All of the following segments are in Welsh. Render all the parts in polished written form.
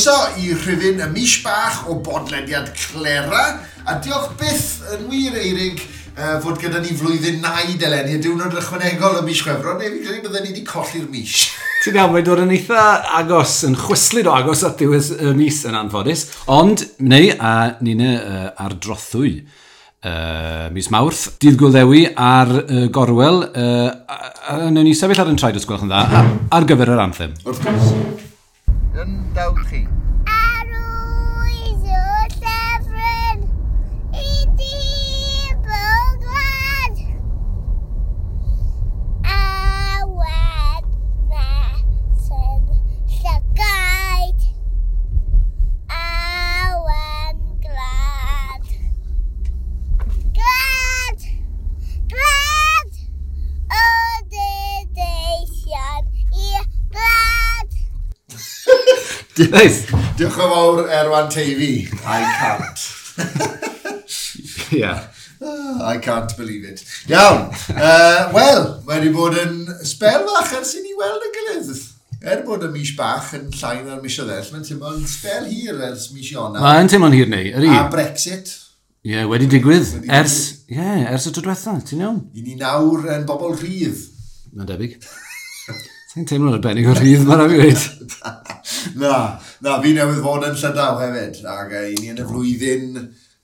Croeso i rhifyn y mis bach o bodlediad Clera, a diolch byth yn wir, Eirig, fod gyda ni flwyddyn naid eleni, a diwrnod ychwanegol y mis Chwefror, neu fi'n credu bydden ni wedi colli'r mis. Ti'n iawn, mae'n dod yn eitha agos, yn chwyslyd o agos at ddiwedd y mis yn anffodus. Ond, neu, a ni'n ar drothwy mis Mawrth, dydd Gŵyl Ddewi ar gorwel, a newn ni sefyll ar yn traed os gwelwch yn dda, ar gyfer yr anthem. Wrth gwrs. Yn dawd chi. Arwydd o llyfryn i di glad a wed mesyn llygaid awen glad glad glad o deisian i glad. Nice. Diolch yn fawr, Erwan Teifi. I can't. Yeah. I can't believe it. Iawn. Wel, mae wedi bod yn sbel fach ers i ni weld y gilydd. Er bod y mis bach yn llai na'r misoedd eraill, mae'n teimlo'n sbel hir ers mis Ionawr. Mae'n teimlo'n hir neu, ydy? A Brexit. Ie, yeah, wedi digwydd. Ers, ie, yeah, ers y tro diwetha, ti'n iawn? I ni nawr yn bobl rhydd. Mae'n debyg. Sa'n teimlo'n arbennig o rhydd, mae'n rhaid fi weud. Na, fi newydd fod yn Llydaw hefyd, ac i ni yn y flwyddyn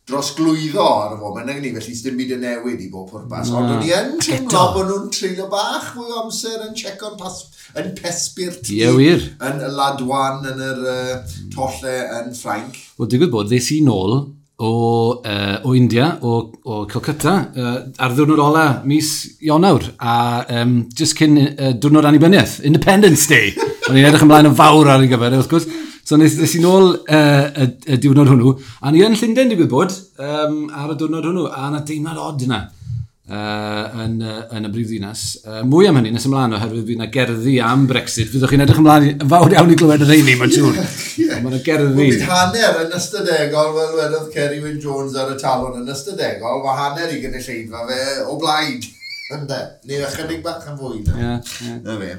drosglwyddo ar y foment, nag ni, felly sdim byd yn newid i bob pwrpas. Ond o'n i yn teimlo bod nhw'n treulio bach fwy o amser yn checo'n yn pesbirt. Ie, wir. Yn y Ladwan, yn yr tolle yn Ffrainc. Wel, digwydd bod, ddes i nôl o India, o Calcutta, ar ddiwrnod ola mis Ionawr, a just cyn diwrnod annibyniaeth, Independence Day. O'n i'n edrych ymlaen yn fawr ar ei gyfer, wrth gwrs. So nes i nôl y diwrnod hwnnw, a ni yn Llundain digwydd bod ar y diwrnod hwnnw, a yna deimlad od yna yn y brifddinas. Mwy am hynny nes ymlaen oherwydd fydd yna gerddi am Brexit. Fyddwch chi'n edrych ymlaen yn fawr iawn i glywed y rheini, mae'n siŵr. Yeah. Mae yna gerddi. Bydd hanner yn ystadegol, fel wedodd Ceri Wyn Jones ar y talon yn ystadegol, mae hanner i gynulleidfa fe o blaid. Ynde? Neu ychydig bach yn fwy. Ie. Na fe.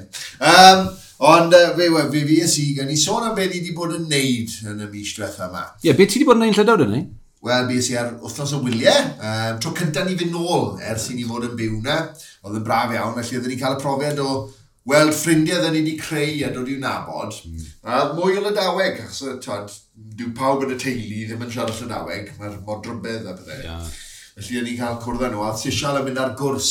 Ond fe fues i, gan i sôn am be ni wedi bod yn neud yn y mis diwetha yma. Ie, be ti wedi bod yn neud yn Llydaw, dyn ni? Wel, bues i ar wythnos o wyliau. Tro cyntaf ni fynd nôl ers i ni fod yn byw na. Oedd yn braf iawn, felly oedden ni'n cael y profiad o weld ffrindiau oedden ni wedi creu a dod i'w nabod. A mwy o Lydaweg, achos dyw pawb yn y teulu ddim yn siarad Llydaweg, mae'r modrybedd a pethau. Yeah. Felly o'n i'n cael cwrdd â nhw, a Sisial yn mynd ar gwrs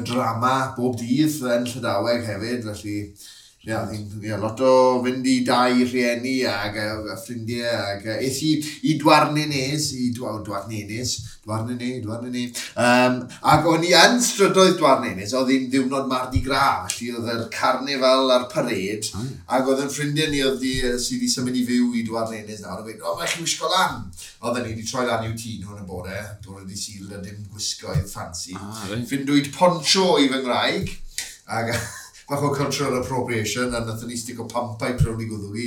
drama bob dydd yn Llydaweg hefyd, felly ie, lot o fynd i dau rhieni ag ffrindiau ag es i Douarnenez, Douarnenez. Ac o'n i yn strydoedd Douarnenez, oedd hi'n ddiwrnod Mardi Gras, felly oedd yr carnifal a'r parade, ac oedd yn ffrindiau ni oedd sydd wedi symud i fyw i Douarnenez nawr, a gweud, o, mae chi wisgo lan. Oedden ni wedi troi lan i'w tŷ nhw yn y bore, bore di Sul a dim gwisgoedd ffansi. Right. Ffindwyd poncho i fy ngwraig, ac bach o cultural appropriation, a nathon ni stico pampau prwn i gwddw i,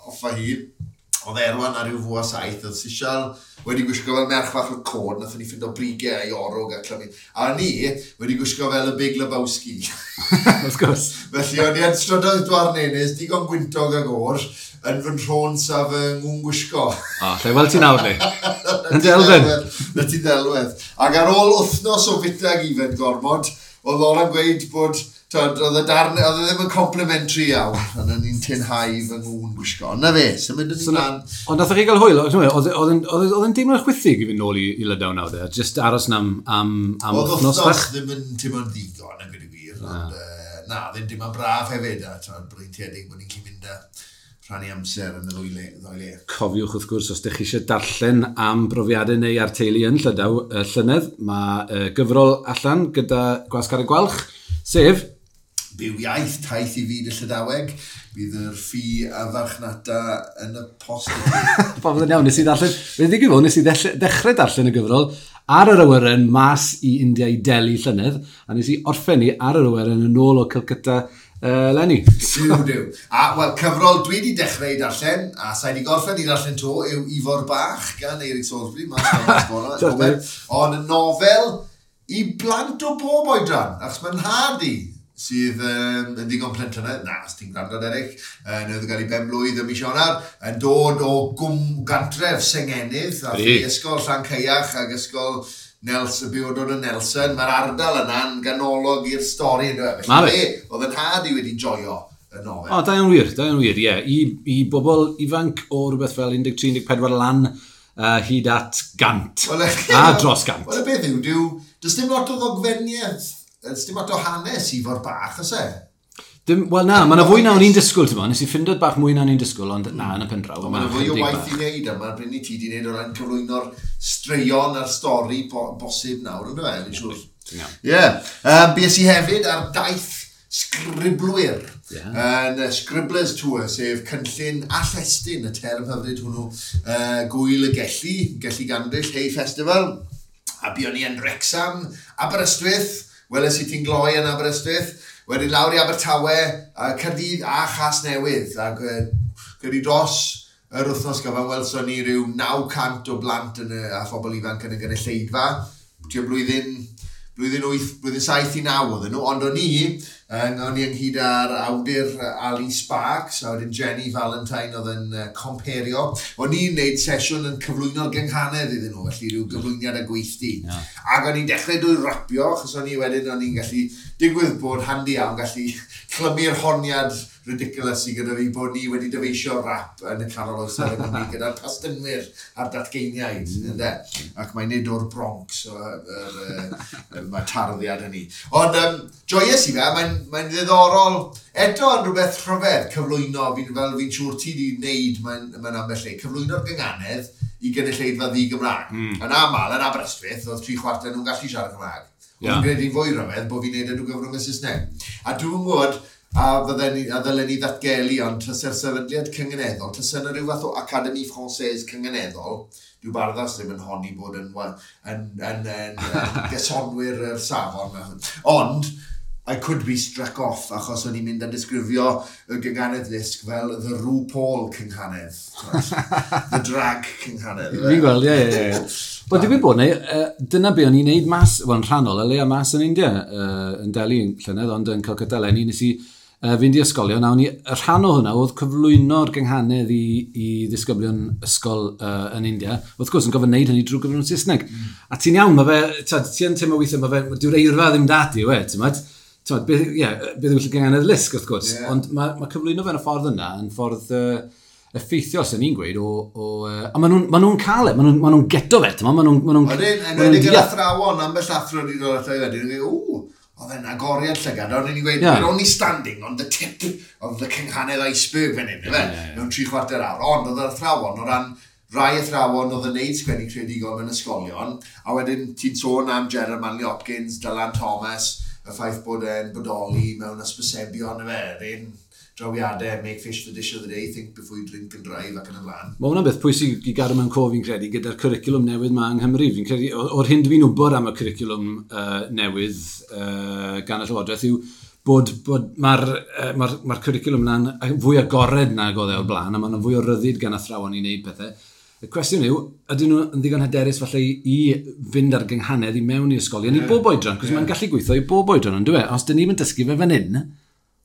off a hi. Oedd Erwan ar ryw 7:15, oedd Sisial wedi gwisgo fel merch fach o cod, nathon ni ffindo brigau a'i orwg a clymu. A ni wedi gwisgo fel y Big Lebowski. Wrth gwrs. Felly o'n i yn strydoedd Douarnenez, digon gwyntog ag o'r, yn fy nhrons a fy ngwn gwisgo. O, lle weld ti nawr, ni. Yn delfyn. Na ti ddelwedd. Ac ar ôl wythnos o fita ag ifed gormod, oedd Lora'n gweud bod oedd e ddim yn complimentary iawn, ond o'n i'n tynhau fy ngwn gwisgo. Ond na fe, symud yn ymlaen. Ond nath chi gael hwyl, oedd yn deimlo'n chwithig i fynd nôl i Lydaw nawr, de? Just aros na am Oedd wythnos bach? wythnos ddim yn teimlo'n ddigon, yn gwneud y gwir, ond na, ddim teimlo'n braf hefyd, a breintiedig bod ni'n gallu mynd a rhannu amser yn y ddwy le. Cofiwch wrth gwrs, os ydych chi eisiau darllen am brofiadau neu ar teulu yn Llydaw llynedd, mae gyfrol allan gyda Gwasg Ar y Gwalch, sef Byw Iaith, taith i fyd y Llydaweg, bydd yr ffi a farchnata yn y post. Popeth yn iawn, nes i ddarllen, fe ddigwydd fod, nes i ddechrau darllen y gyfrol ar yr awyren mas i India i Delhi llynedd, a nes i orffen ni ar yr awyren yn ôl o Calcutta Lenny. Duw. A, wel, cyfrol dwi wedi dechrau i darllen, a sa'i wedi gorffen i darllen to, yw Ifor Bach gan Eirig Salisbury, mas o'r. Ond y nofel i blant o bob oedran, achos mae'n nhad i sydd yn ddigon plentynaidd, na, os ti'n gwrando, Derek, newydd gael ei ben-blwydd ym mis Ionawr, yn dod o gwm gantref Sengenydd, a ysgol Llancaiach ac ysgol Nelson, byw dod yn Nelson. Mae'r ardal yna'n ganolog i'r stori, ynddo fe? Felly, oedd yn nhad i wedi joio y nofel. O, da iawn wir, da iawn wir, ie. I bobl ifanc o rhywbeth fel 13-14 lan hyd at 100. Well, a dros 100. Wel, y beth yw, does dim lot o ddogfeniaeth, does dim lot o hanes i fod bach, oes e? Dim, wel na, mae yna fwy na o'n i'n disgwyl, ti'n bo. Nes i ffindo bach mwy na o'n i'n disgwyl, ond na, yn y pen draw. Mae yna fwy o waith i wneud, a mae'r bryn i ti di wneud o ran cyflwyno'r straeon a'r stori bosib nawr, ynddo fe, fi'n siŵr. Ie. Bues i hefyd ar daith sgriblwyr. Yn Scribblers Tour, sef cynllun allestyn, y term hyfryd hwnnw, Gwyl y Gelli, Gelli Gandryll, Hay Festival. A buon ni yn Wrexham, Aberystwyth, weles i ti'n gloi yn Aberystwyth, wedyn lawr i Abertawe, Caerdydd a Chasnewydd. Ac gyda dros yr wythnos gyfan, welson ni ryw 900 o blant a phobl ifanc yn y gynulleidfa. Tua blwyddyn 8, blwyddyn 7 i 9 oedden nhw, ond o'n i ynghyd â'r awdur Ali Sparks, a wedyn Jenny Valentine oedd yn comperio. O'n i'n neud sesiwn yn cyflwyno'r gynghanedd iddyn nhw, felly rhyw gyflwyniad a gweithdy. Yeah. Ac o'n i'n dechrau drwy rapio, achos o'n i wedyn o'n i'n gallu digwydd bod handi iawn, gallu clymu'r honiad ridiculous i gyda fi bod ni wedi dyfeisio rap yn y canol oesoedd yng Nghymru gyda'r pastynwyr a'r datgeiniaid, ynde? Ac mae'n nid o'r Bronx, mae tarddiad hynny. Ond joies i fe, mae'n ddiddorol, eto yn rhywbeth rhyfedd cyflwyno, fel fi'n siŵr ti wedi wneud, mae'n ambell le, cyflwyno'r gynghanedd i gynulleidfa ddi-Gymraeg. Yn aml, yn Aberystwyth, oedd 3/4 nhw'n gallu siarad Cymraeg. Ond yn gwneud hi'n fwy rhyfedd bod fi'n neud e drwy gyfrwng y Saesneg. A dwi'n gwybod, a ddylen ni ddatgelu, ond tase'r sefydliad cynganeddol, tase yna rhyw fath o Académie Française cynganeddol, dyw Barddas ddim yn honni bod yn gysonwyr yr safon. Ond, I could be struck off, achos o'n i'n mynd a disgrifio y gynghanedd lusg fel the RuPaul cynghanedd. The drag cynghanedd. Fi'n gweld, ie. Wel, digwydd bod, neu, dyna be o'n i'n neud mas, wel, yn rhannol, y leia mas yn India, yn Delhi llynedd, ond yn Calcutta eleni, nes i fynd i ysgolion, a o'n i, y rhan o hwnna oedd cyflwyno'r gynghanedd i ddisgyblion ysgol yn India. Wrth gwrs, yn gofyn wneud hynny drwy gyfrwng Saesneg. A ti'n iawn, mae fe, ti yn teimlo weithiau, mae fe, dyw'r eirfa ddim dati, yw e, ti'n meddwl? Beth yw'r gynghanedd lusg, wrth gwrs. Yeah. Ond mae cyflwyno fe yn y ffordd yna, yn ffordd effeithiol, sy'n ni'n gweud, a maen nhw'n cael e, maen nhw'n geto fe, maen nhw'n Wedyn, enwedig yr athrawon, ambell athro wedi dod ato i wedyn, yn gweud, oedd e'n agoriad llygad, ond ni'n gweud, we're only standing on the tip of the cynghanedd iceberg fan hyn, ife, mewn 3/4 awr. Ond oedd yr athrawon, o ran rai athrawon oedd yn neud sgwennu creadigol mewn ysgolion, a wedyn ti'n sôn am Gerard Manley Hopkins, Dylan Thomas, y ffaith bod e'n bodoli mewn ysbysebion, ife, yr un drawiadau, make fish the dish of the day, think before you drink and drive, ac yn y blaen. Mae hwnna'n beth pwysig i gadw mewn cof, fi'n credu, gyda'r cwricwlwm newydd ma yng Nghymru. Fi'n credu, o'r hyn dwi'n wybod am y cwricwlwm newydd gan y Llywodraeth yw bod mae'r cwricwlwm yna'n fwy agored nag oedd e o'r blaen, a mae'n fwy o ryddid gan athrawon i wneud pethau. Y cwestiwn yw, ydyn nhw yn ddigon hyderus falle i fynd ar gynghanedd i mewn i ysgolion i bob oedran, cos mae'n gallu gweithio i bob oedran, ond dyw e? Os dyn ni'n dysgu fe fan hyn,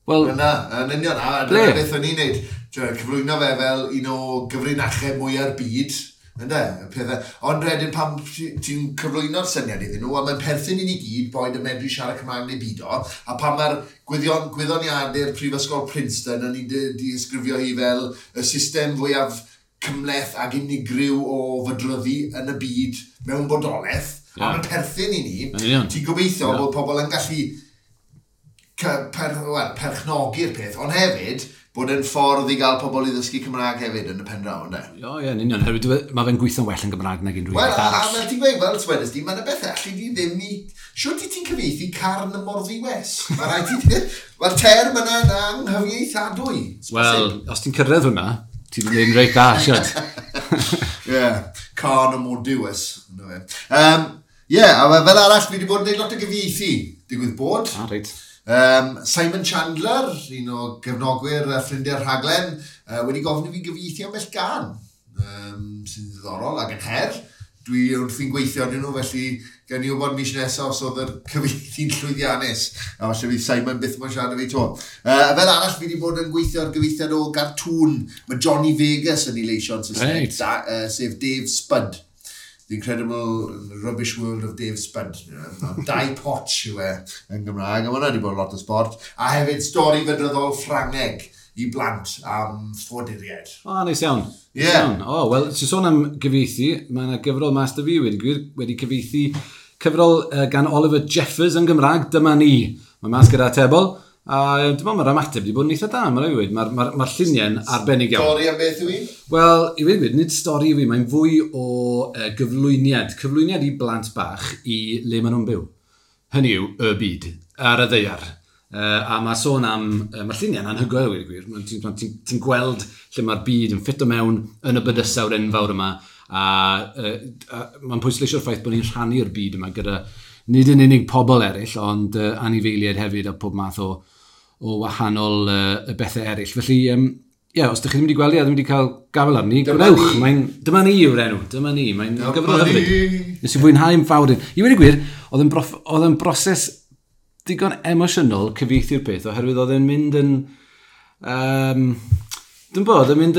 wel... Yna, yn union, a dyna beth o'n i'n neud. Cyflwyno fe fel un o gyfrinachau mwy'r byd, ynde, y pethau. Ond wedyn pan ti'n cyflwyno'r syniad iddyn nhw, a mae'n perthyn i ni gyd, boed yn medru siarad Cymraeg neu beidio, a pan mae'r gwyddoniadur Prifysgol Princeton yn ei disgrifio hi fel y system fwyaf cymhleth ac unigryw o fydryddu yn y byd mewn bodolaeth, a mae'n perthyn i ni, ti'n gobeithio bod pobl yn gallu perchnogi'r peth, ond hefyd bod e'n ffordd i gael pobl i ddysgu Cymraeg hefyd yn y pen draw, ynde? O, ie, yn union. Herwydd mae fe'n gweithio'n well yn Gymraeg nag unrhyw beth arall. Wel, a fel ti'n gweud, fel swedest di, mae'n y beth allu di ddim i... Siwt i ti'n cyfieithu carn y morddiwes? Mae'r term yna'n anghyfieithadwy. Wel, os ti'n cyrraedd hwnna, ti wedi gwneud yn reit dda, siwt. Ie, carn y morddiwes. Ie, a fel arall, fi wedi bod yn gwneud lot o gyfieithu. Digwydd bod. Ah, reit. Simon Chandler, un o gefnogwyr a ffrindiau'r rhaglen, wedi gofyn i fi gyfieithu ambell gân, sy'n ddiddorol ac yn her. Dwi wrthi'n gweithio arnyn nhw, felly gen i wybod mis nesaf os oedd yr cyfieithu'n llwyddiannus. A falle fydd Simon byth moyn siarad â fi 'to. Fel arall, fi wedi bod yn gweithio ar gyfieithiad o gartŵn. Mae Johnny Vegas yn ei leisio yn Saesneg, sef Dave Spud. The Incredible Rubbish World of Dave Spud. Dau Potch yw e yn Gymraeg, a mae hwnna wedi bod lot o sport. A hefyd stori fydryddol Ffrangeg i blant am ffoaduriaid. O, neis iawn. Ie. Neis iawn. O, wel, ti'n sôn am gyfieithu, mae yna gyfrol mas 'da fi wedi gwir, wedi cyfieithu cyfrol gan Oliver Jeffers yn Gymraeg, Dyma Ni. Mae mas gyda Atebol, a dwi'n meddwl mae'r ymateb wedi bod yn eitha da, mae'n rhaid i weud. Mae'r lluniau'n arbennig iawn. Stori am beth yw hi? Wel, i weud gwir, nid stori yw hi, mae'n fwy o gyflwyniad. Cyflwyniad i blant bach i le maen nhw'n byw. Hynny yw, y byd, ar y ddaear. A mae sôn am, mae'r lluniau'n anhygoel, i weud y gwir. Ti'n gweld lle mae'r byd yn ffito mewn yn y bydysawd enfawr yma, a mae'n pwysleisio'r ffaith bod ni'n rhannu'r byd yma gyda nid yn unig pobl eraill, ond anifeiliaid hefyd a pob math o wahanol y bethau eraill. Felly, ie, os ydych chi ddim wedi gweld i a ddim wedi cael gafel arni, Dyma gwnewch. Ni. Dyma Ni yw'r enw, Dyma Ni. Mae'n Dyma gyfrol hyfryd. Ni. Nes i fwynhau'n fawr. I weud y gwir, oedd yn broses digon emosiynol cyfieithu'r peth, oherwydd oedd e'n mynd yn... Dwi'n bod, oedd e'n mynd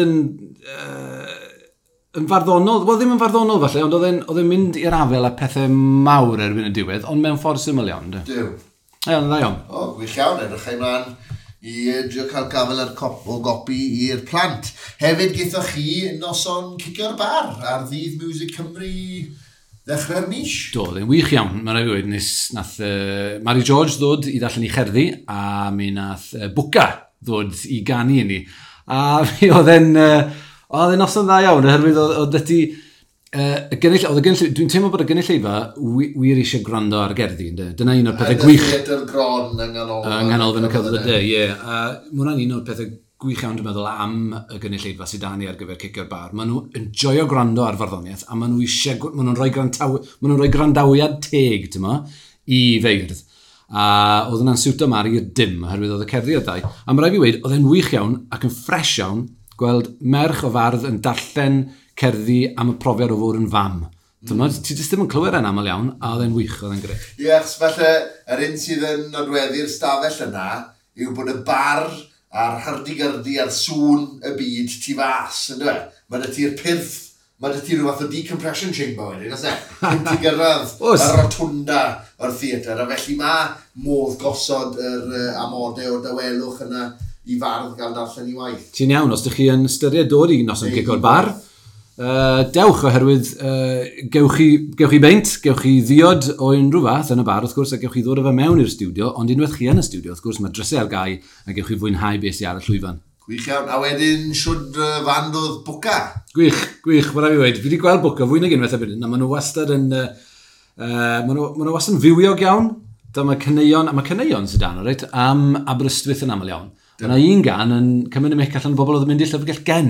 yn farddonol, wel ddim yn farddonol falle, ond oedd e'n mynd i'r afel a pethau mawr erbyn y diwedd, ond mewn ffordd syml iawn. De. Duw. Ie, ond dda iawn. O, gwych iawn, edrych ymlaen i drio cael gafel ar cop, o gopi i'r plant. Hefyd gaethoch chi noson Cicio'r Bar ar ddydd Music Cymru ddechrau'r mis. Do, oedd e'n wych iawn, mae'n rhaid i weud, nath Mary George ddod i ddarllen i cherddi, a mi nath Bwca ddod i ganu i ni. A mi oedd e'n noson dda iawn, oherwydd oedd ti, oedd y gynulleidfa, dwi'n teimlo bod y gynulleidfa wir eisiau gwrando ar gerddi, ynde? Dyna un o'r pethau gwych Theatr Gron yng Nghanolfan. Yng Nghanolfan y Celfyddydau, ie. A mae hwnna'n un o'r pethau gwych iawn, dwi'n meddwl, am y gynulleidfa sydd 'da ni ar gyfer Cicio'r Bar. Maen nhw yn joio gwrando ar farddoniaeth, a maen nhw eisiau, maen nhw'n rhoi gwrandawiad teg, ti'n mo, i feirdd. A oedd hwnna'n siwto Mari i'r dim, oherwydd oedd y cerddi o ddau. A mae rhaid fi weud, oedd e'n wych iawn ac yn ffres iawn gweld merch o fardd yn darllen cerddi am y profiad o fod yn fam. Mm. Ti jyst ddim yn clywed e'n aml iawn, a oedd e'n wych, oedd e'n grêt. Ie, achos falle yr un sydd yn nodweddu'r stafell yna yw bod y bar a'r hyrdi-gyrdi a'r sŵn y byd tu fas, yn dweud? Mae 'da ti'r pyrth, mae 'da ti rhyw fath o decompression chamber wedyn, oes e? Cyn ti gyrraedd Oes. y rotunda o'r theatr, a felly mae modd gosod yr amodau o dawelwch yna i fardd gael darllen i waith. Ti'n iawn, os ydych chi yn ystyried dod i noson Cicio'r Bar, dewch oherwydd gewch chi beint, gewch chi ddiod o unrhyw fath yn y bar, wrth gwrs, a gewch chi ddod â fe mewn i'r stiwdio, ond unwaith chi yn y stiwdio, wrth gwrs, mae drysau ar gau a gewch chi fwynhau beth sydd ar y llwyfan. Gwych iawn. A wedyn, siwd fand oedd Bwca? Gwych, gwych, mae rhaid fi weud. Fi wedi gweld Bwca fwy nag unwaith erbyn hyn, a maen nhw wastad yn... Maen nhw wastad yn fywiog iawn. Dyma caneuon, a mae caneuon sydd dan, reit, am Aberystwyth yn aml iawn. Yna un gan yn cymryd y mic allan o bobl oedd yn mynd i'r llyfrgell gen.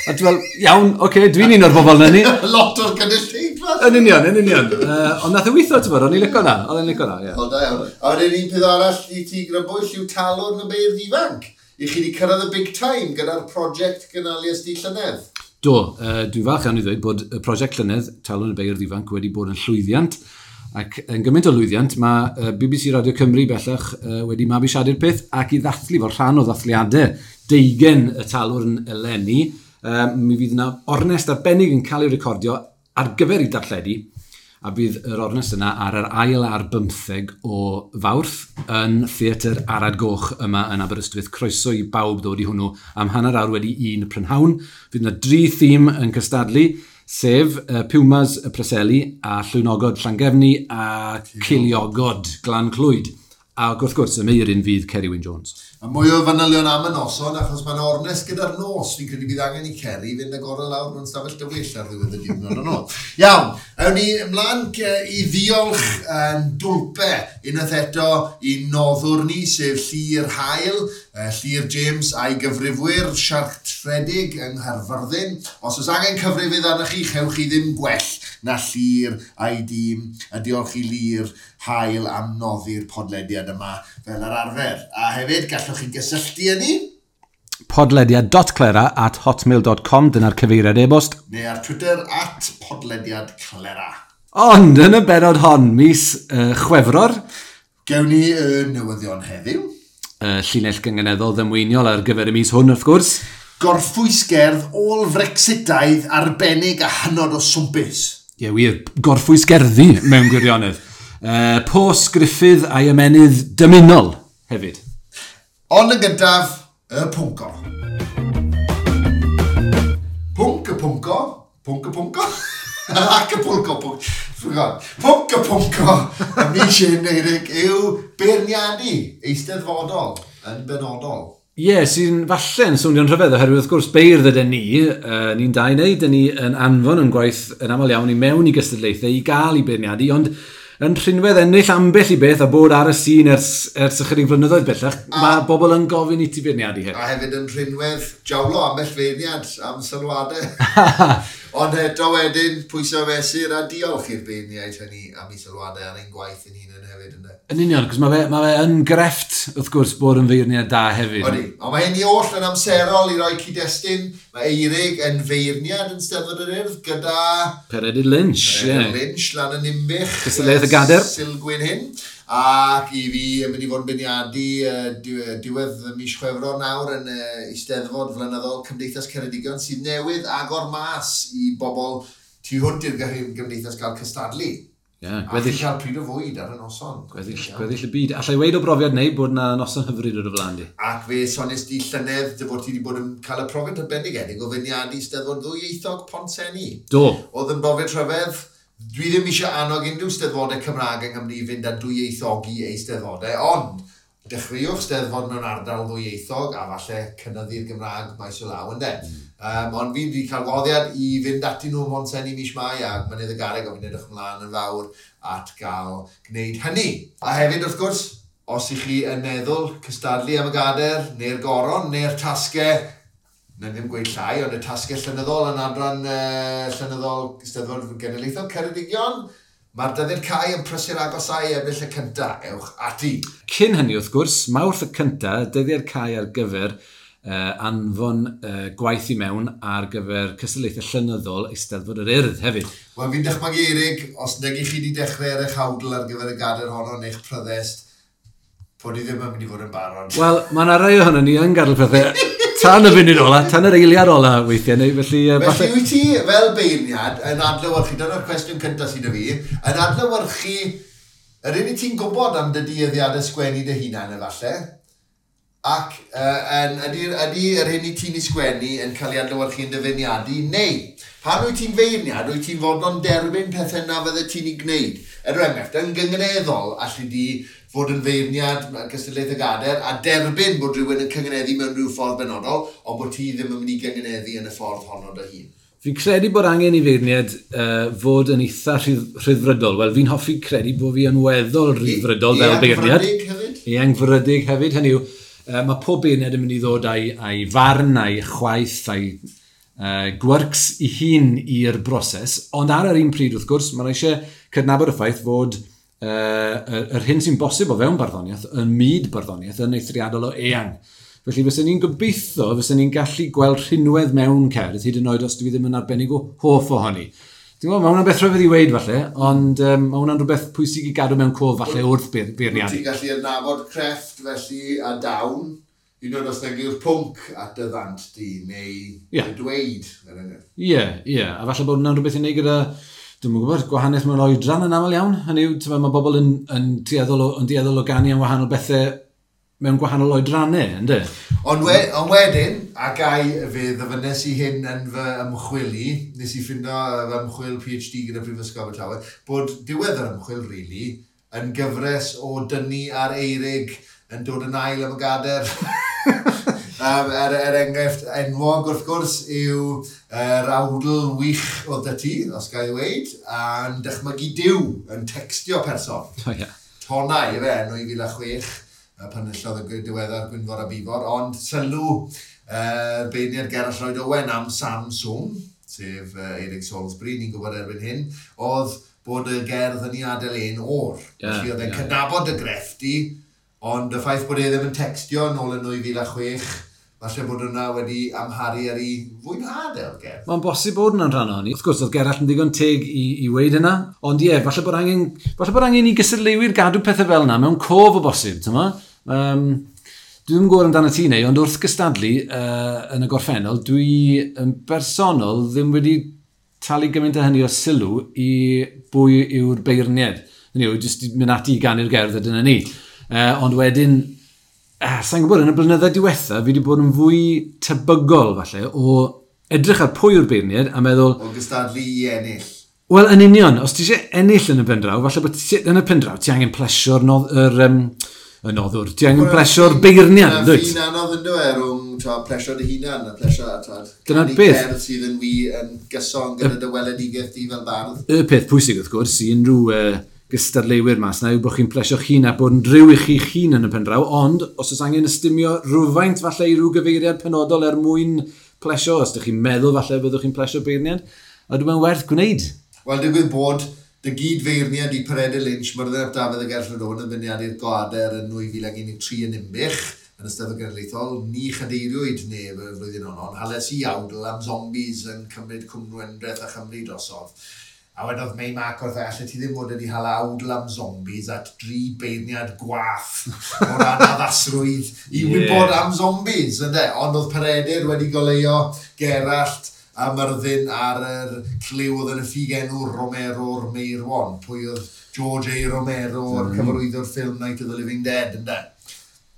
A dwi'n fel, iawn, oce, okay, dwi'n un o'r bobl na ni. Lot o'r gynulleidfa. Yn union, yn union. Ond nath e weithio, ti'n bod, o'n i'n licio na, oedd e'n licio na, ie. O, da iawn. A wedyn un peth arall i ti grybwyll yw Talwrn y Beirdd Ifanc. I chi wedi cyrraedd y big time gyda'r prosiect gynaliais di llynedd. Do, dwi'n falch iawn i ddweud bod y prosiect llynedd, Talwrn y Beirdd Ifanc, wedi bod yn llwyddiant. Ac yn gymaint o lwyddiant, mae BBC Radio Cymru bellach wedi mabwysiadu'r peth ac i ddathlu fel rhan o ddathliadau 20 y Talwrn eleni. Mi fydd yna ornest arbennig yn cael ei recordio ar gyfer ei darlledu, a bydd yr ornest yna ar yr 22 o Fawrth yn Theatr Arad Goch yma yn Aberystwyth. Croeso i bawb ddod i hwnnw am 1:30 prynhawn. Fydd yna dri thîm yn cystadlu, sef Pumas y Preseli a Llwynogod Llangefni a Ceiliogod Glan Clwyd. Ac wrth gwrs, y meuryn fydd Ceri Wyn Jones. A mwy o fanylion am y noson, achos mae'n ornest gyda'r nos. Fi'n credu bydd angen i Ceri fynd agor lawr mewn stafell dywyll ar ddiwedd y diwrnod yn ôl. Iawn, awn ni ymlaen i ddiolch yn dwlpe unwaith eto i noddwr ni, sef Llyr Hael, Llyr James a'i gyfrifwyr siartredig yng Nghaerfyrddin. Os oes angen cyfrifydd arnoch chi, chewch chi ddim gwell na Llyr a'i dîm, a diolch i Llyr Hael am noddi'r podlediad yma fel yr arfer. A hefyd, gallwch chi gysylltu â ni. podlediad.clera@hotmail.com, dyna'r cyfeiriad e-bost. Neu ar Twitter @podlediadclera. Ond yn y benod hon, mis Chwefror, gewn ni y newyddion heddiw. Llinell gynganeddol ddamweiniol ar gyfer y mis hwn, wrth gwrs. Gorffwysgerdd ôl-Frexitaidd arbennig a hynod o swmpus. Ie, wir, gorffwysgerddi mewn gwirionedd. Pos Gruffydd a'i ymenydd dymunol hefyd. Ond yn gyntaf, y pwnco. Pwnc y pwnco, pwnc y pwnco, ac y pwlco, pwnc, forgot. Pwnc y pwnco, y mis hyn, Eirig, yw beirniadu eisteddfodol yn benodol. Ie, yeah, sy'n falle yn swnio'n rhyfedd, oherwydd wrth gwrs beirdd ydyn ni, ni'n dau neu, dyn ni yn anfon yn gwaith yn aml iawn i mewn i gystadlaethau i gael i beirniadu, ond yn rhinwedd ennill ambell i beth a bod ar y sîn ers ychydig flynyddoedd bellach, mae bobl yn gofyn i ti beirniadu hefyd. A hefyd yn rhinwedd jawlo ambell feirniad am sylwadau. Ond eto wedyn, pwyso mesur a diolch i'r beirniaid hynny am eu sylwadau ar ein gwaith yn hunain hefyd. Ynde? Yn union, cos mae fe yn grefft, wrth gwrs, bod yn feirniad da hefyd. Odi, ond mae hyn i oll yn amserol i roi cyd-destun. Mae Eirig yn feirniad yn Steddfod yr Urdd gyda Peredur Lynch, ie. Peredur Lynch lan yn Ninbych. Cystadleuaeth y Gader. Sulgwyn hyn. Ac i fi yn mynd i fod yn beirniadu diwedd y mis Chwefror nawr yn Eisteddfod Flynyddol Cymdeithas Ceredigion sydd newydd agor mas i bobl tu hwnt i'r gymdeithas gael cystadlu. Ie, A gweddill, chi cael pryd o fwyd ar y noson. Gweddill y byd. Allai weud o brofiad neu bod na noson hyfryd o'r flaen di. Ac fe sonies di llynedd dy fod ti wedi bod yn cael y profiad arbennig o feirniadu Steddfod ddwyieithog Pontsenni. Do. Oedd yn brofiad rhyfedd. Dwi ddim eisiau annog unrhyw steddfodau Cymraeg yng Nghymru i fynd â dwyieithogi eu steddfodau, ond dechreuwch steddfod mewn ardal ddwyieithog a falle cynyddu'r Gymraeg maes o law, ynde. Ond fi wedi cael gwahoddiad i fynd ati nhw ym Mhontsenni mis Mai ac Mynydd y Garreg, o fi'n edrych ymlaen yn fawr at gael gwneud hynny. A hefyd, wrth gwrs, os ych chi yn meddwl cystadlu am y gader, neu'r goron, neu'r tasgau, na ddim gweud llai, ond y tasgau llenyddol yn adran llenyddol Steddfod Genedlaethol Ceredigion, mae'r dyddiad cau yn prysur agosau Ebrill y 1, ewch ati. Cyn hynny, wrth gwrs, Mawrth y 1, dyddiad cau ar gyfer anfon gwaith i mewn ar gyfer cystadlaethau llenyddol Eisteddfod yr Urdd hefyd. Wel, fi'n dychmygu, Eirig, os nag i chi wedi dechrau ar eich awdl ar gyfer y gader honno neu'ch pryddest, bod i ddim yn mynd i fod yn barod. Wel, mae yna rai ohono ni yn gadael pethau tan y funud ola, tan yr eiliad ola weithiau, neu felly Felly falle. Wyt ti fel beirniad yn adlewyrchu, dyna'r cwestiwn cyntaf sydd 'da fi, yn adlewyrchu yr un i ti'n gwybod am dy dueddiadau sgwennu dy hunan efallai, ac ydy yr hyn i ti'n ei sgwennu yn cael ei adlewyrchu yn dy feirniadu, neu pan wyt ti'n feirniad, wyt ti'n fodlon derbyn pethau na fydde ti'n ei gwneud. Er enghraifft, yn gynganeddol, allu di fod yn feirniad gystadlaeth y gader a derbyn bod rhywun yn cynganeddu mewn rhyw ffordd benodol, ond bod ti ddim yn mynd i gynganeddu yn y ffordd honno dy hun. Fi'n credu bod angen i feirniad fod yn eitha rhyddfrydol. Wel, fi'n hoffi credu bod fi yn weddol rhyddfrydol fel beirniad. Eangfrydig hefyd? Eangfrydig hefyd, hynny yw, mae pob beirniad yn mynd i ddod a'i farn, a'i chwaith, a'i gwerks i hun i'r broses, ond ar yr un pryd, wrth gwrs, mae'n eisiau cydnabod y ffaith fod yr hyn sy'n bosib o fewn barddoniaeth, yn myd barddoniaeth, yn eithriadol o eang. Felly fysen ni'n gobeithio, fysen ni'n gallu gweld rhinwedd mewn cerdd, hyd yn oed os dwi ddim yn arbennig o hoff ohoni. Ti'n gwybod, mae hwnna'n beth rhyfedd i weud falle, ond mae hwnna'n rhywbeth pwysig i gadw mewn cof falle wrth beirniadu. Ti'n gallu adnabod crefft felly a dawn, un oed os nag yw'r pwnc at dy ddant di, neu y dweud, er enghraifft. Ie, a falle bod hwnna'n rhywbeth i wneud gyda, dwi'm yn gwybod, gwahaniaeth mewn oedran yn aml iawn. Hynny yw, t'mod, mae bobl yn dueddol o ganu am wahanol bethau mewn gwahanol oedrannau, yndê? Ond wedyn, a gai fe ddyfynnes i hyn yn fy ymchwil i, nes i ffindo fy ymchwil PhD gyda Prifysgol Abertawe, bod diwedd yr ymchwil, really, yn gyfres o dynnu ar Eirig yn dod yn ail am y gader. Er enghraifft enwog, wrth gwrs, yw yr awdl wych oedd 'da ti, os ga i ddweud, a'n dychmygu Duw yn textio person. O, ie. Tonnau, ife, yn 2006, pan enillodd y diweddar Gwynfor a Bifor, ond sylw beirniad Gerallt Lloyd Owen am Samsung, sef Eirig Salisbury, ni'n gwybod erbyn hyn, oedd bod y gerdd yn ei adael e'n o'r. Felly oedd e'n cydnabod y grefft i, ond y ffaith bod e ddim yn textio yn ôl yn 2006, Falle bod hwnna wedi amharu ar ei fwynhad e o'r gerdd. Mae'n bosib bod hwnna'n rhan ohoni. Wrth gwrs, oedd Gerallt yn ddigon teg i weud hynna. Ond ie, falle bod angen i gystadleuwyr gadw pethau fel yna mewn cof o bosib, ti'n ma? Dwi ddim yn gwybod amdano ti neu, ond wrth gystadlu yn y gorffennol, dwi yn bersonol ddim wedi talu gymaint o hynny o sylw i bwy yw'r beirniad. Hynny yw, jyst mynd ati i ganu'r gerdd a dyna ni. Ond wedyn, sa'n gwybod, yn y blynyddoedd diwetha, fi wedi bod yn fwy tebygol, falle, o edrych ar pwy yw'r beirniad a meddwl, O gystadlu i ennill. Wel, yn union, os ti eisiau ennill yn y pen draw, falle bod ti, yn y pen draw, ti angen plesio'r nodd, yr, y noddwr, ti angen plesio'r beirniad, Yna dwyt? ffin anodd yn dweud rhwng plesio dy hunan a plesio Dyna'r canu beth. Cerdd sydd yn wi yn gyson gyda dy weledigaeth di fel bardd. Y peth pwysig, wrth gwrs, i unrhyw gystadleuwyr mas na yw bod chi'n plesio'ch hun a bod yn driw i chi'ch hun yn y pen draw, ond os oes angen ystumio rhywfaint falle i ryw gyfeiriad penodol er mwyn plesio, os ydych chi'n meddwl falle byddwch chi'n plesio beirniad, a dwi'n meddwl werth gwneud. Wel, digwydd bod dy gyd-feirniad i Peredur Lynch, Myrddin ap Dafydd a Gerallt Owen yn beirniadu'r Gader yn 2013 yn Ninbych, yn Eisteddfod Genedlaethol, ni chadeiriwyd neb y flwyddyn honno, ond hales i awdl am zombies yn cymryd Cwm Gwendraeth a Chymru drosodd. A wedodd Mei Mac wrth allet ti ddim fod wedi hala awdl am zombies at dri beirniad gwath o ran addasrwydd i wybod am zombies, ynde? Ond oedd Peredur wedi goleuo Gerallt a Myrddin ar yr cliw oedd yn y ffug enw Romero'r Meirwon. Pwy oedd George A. Romero, o'r cyfarwyddwr ffilm Night of the Living Dead, ynde?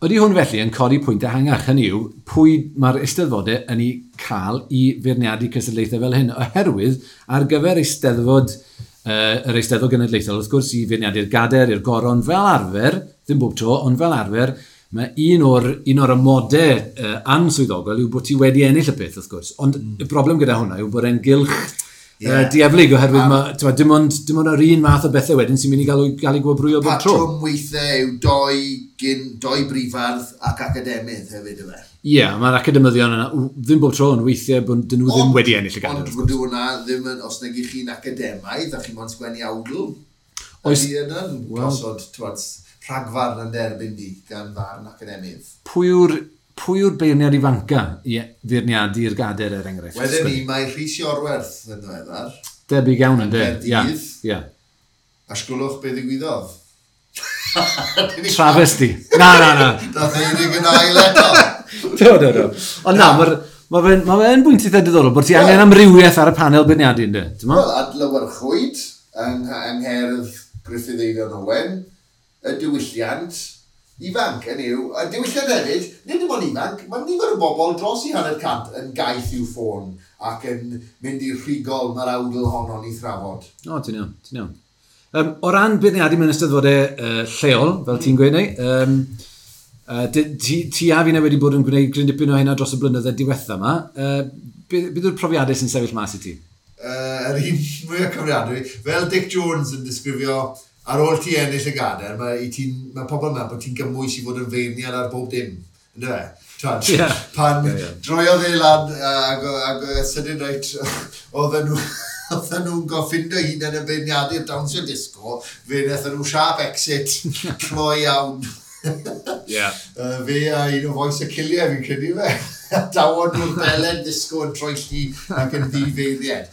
Ydy hwn felly yn codi pwynt ehangach, hynny yw, pwy mae'r eisteddfodau yn ei cael i feirniadu cystadlaethau fel hyn, oherwydd ar gyfer eisteddfod, yr Eisteddfod Genedlaethol, wrth gwrs, i feirniadu'r gader, i'r goron, fel arfer, ddim bob tro, ond fel arfer, mae un o'r amodau answyddogol yw bod ti wedi ennill y peth, wrth gwrs. Ond y broblem gyda hwnna yw bod e'n gylch dieflig, oherwydd ma, t'mod, dim ond yr un math o bethau wedyn sy'n mynd i gael ei gwobrwyo bob tro. Patrwm weithiau yw doi, gyn, doi brifardd ac academydd hefyd yfe. Ie, yeah, mae'r academyddion yna, ddim bob tro, ond weithiau bod dyn nhw ddim wedi ennill y gader. Ond Wrth gwrs. fod hwnna ddim yn, os nag i chi'n academaidd a chi'n mo'n sgwennu awdl, ydy yna'n gosod, t'wod, rhagfarn yn derbyn di gan farn academydd. Pwy yw'r beirniad ifanca i feirniadu'r gader er enghraifft? Wedyn ni, mae Rhys Iorwerth yn ddiweddar. Debyg iawn yn de. Ie, Caerdydd. ie. A sgwlwch be ddigwyddodd. Travesty. Na, na, na. Dath Eirig yn ail eto. Do, do, do. Ond na, ma fe'n bwynt eitha diddorol bod ti angen amrywiaeth ar y panel beirniadu, ynddo? Ti'n mo? Wel, adlewyrchwyd yng ngherdd Gruffydd Eifion Owen, y diwylliant ifanc yn yw, y diwylliant hefyd, nid dim ond ifanc, mae nifer o bobl dros i 50% yn gaeth i'w ffôn ac yn mynd i'r rhigol mae'r awdl honno'n ei thrafod. O, ti'n iawn, ti'n iawn. O ran beirniadu mewn eisteddfodau lleol, fel ti'n gweud neu, ti a fi wedi bod yn gwneud gryn dipyn o hynna dros y blynyddoedd diwetha yma. Beth yw'r profiadau sy'n sefyll mas i ti? Yr un mwyaf cofiadwy, fel Dic Jones yn disgrifio, ar ôl ti ennill y gader, mae pobl yn meddwl bod ti'n gymwys i fod yn feirniad ar bob dim. Ynddo fe? Twad, pan Ie, ie. droiodd e lan ag sydyn reit, oedden nhw'n goffindo hunain yn beirniadu'r dawnsio disco, fe wnaethon nhw sharp exit, cloi iawn. Fe a un o fois y Ciliau fi'n credu fe. Dawon nhw'r belen disco yn troelli ac yn ddifeiriad.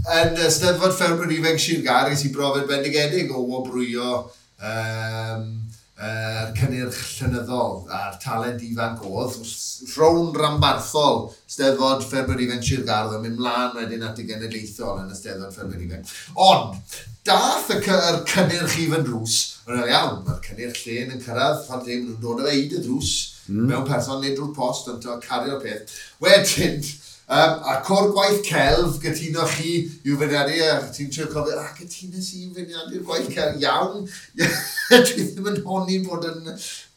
Yn y Steddfod Ffermwyr Ifanc Sir Gâr, ges i brofiad bendigedig o wobrwyo yr cynnyrch llenyddol a'r talent ifanc oedd. Rownd ranbarthol Steddfod Ffermwyr Ifanc Sir Gâr oedd yn mynd mlaen wedyn at y genedlaethol yn y Steddfod Ffermwyr Ifanc. Ond, dath yr cynnyrch i fy ndrws, yn iawn, mae'r cynnyrch llên yn cyrraedd, pan ddim nhw'n dod â fe i dy ddrws, mewn person neu drwy'r post, ond ti'n cario'r peth. Wedyn, a cor gwaith celf, gytuno chi i'w feirniadu, a ti'n trio cofio, a gytunes i i'w feirniadu'r gwaith celf, iawn. Dwi ddim yn honni bod yn,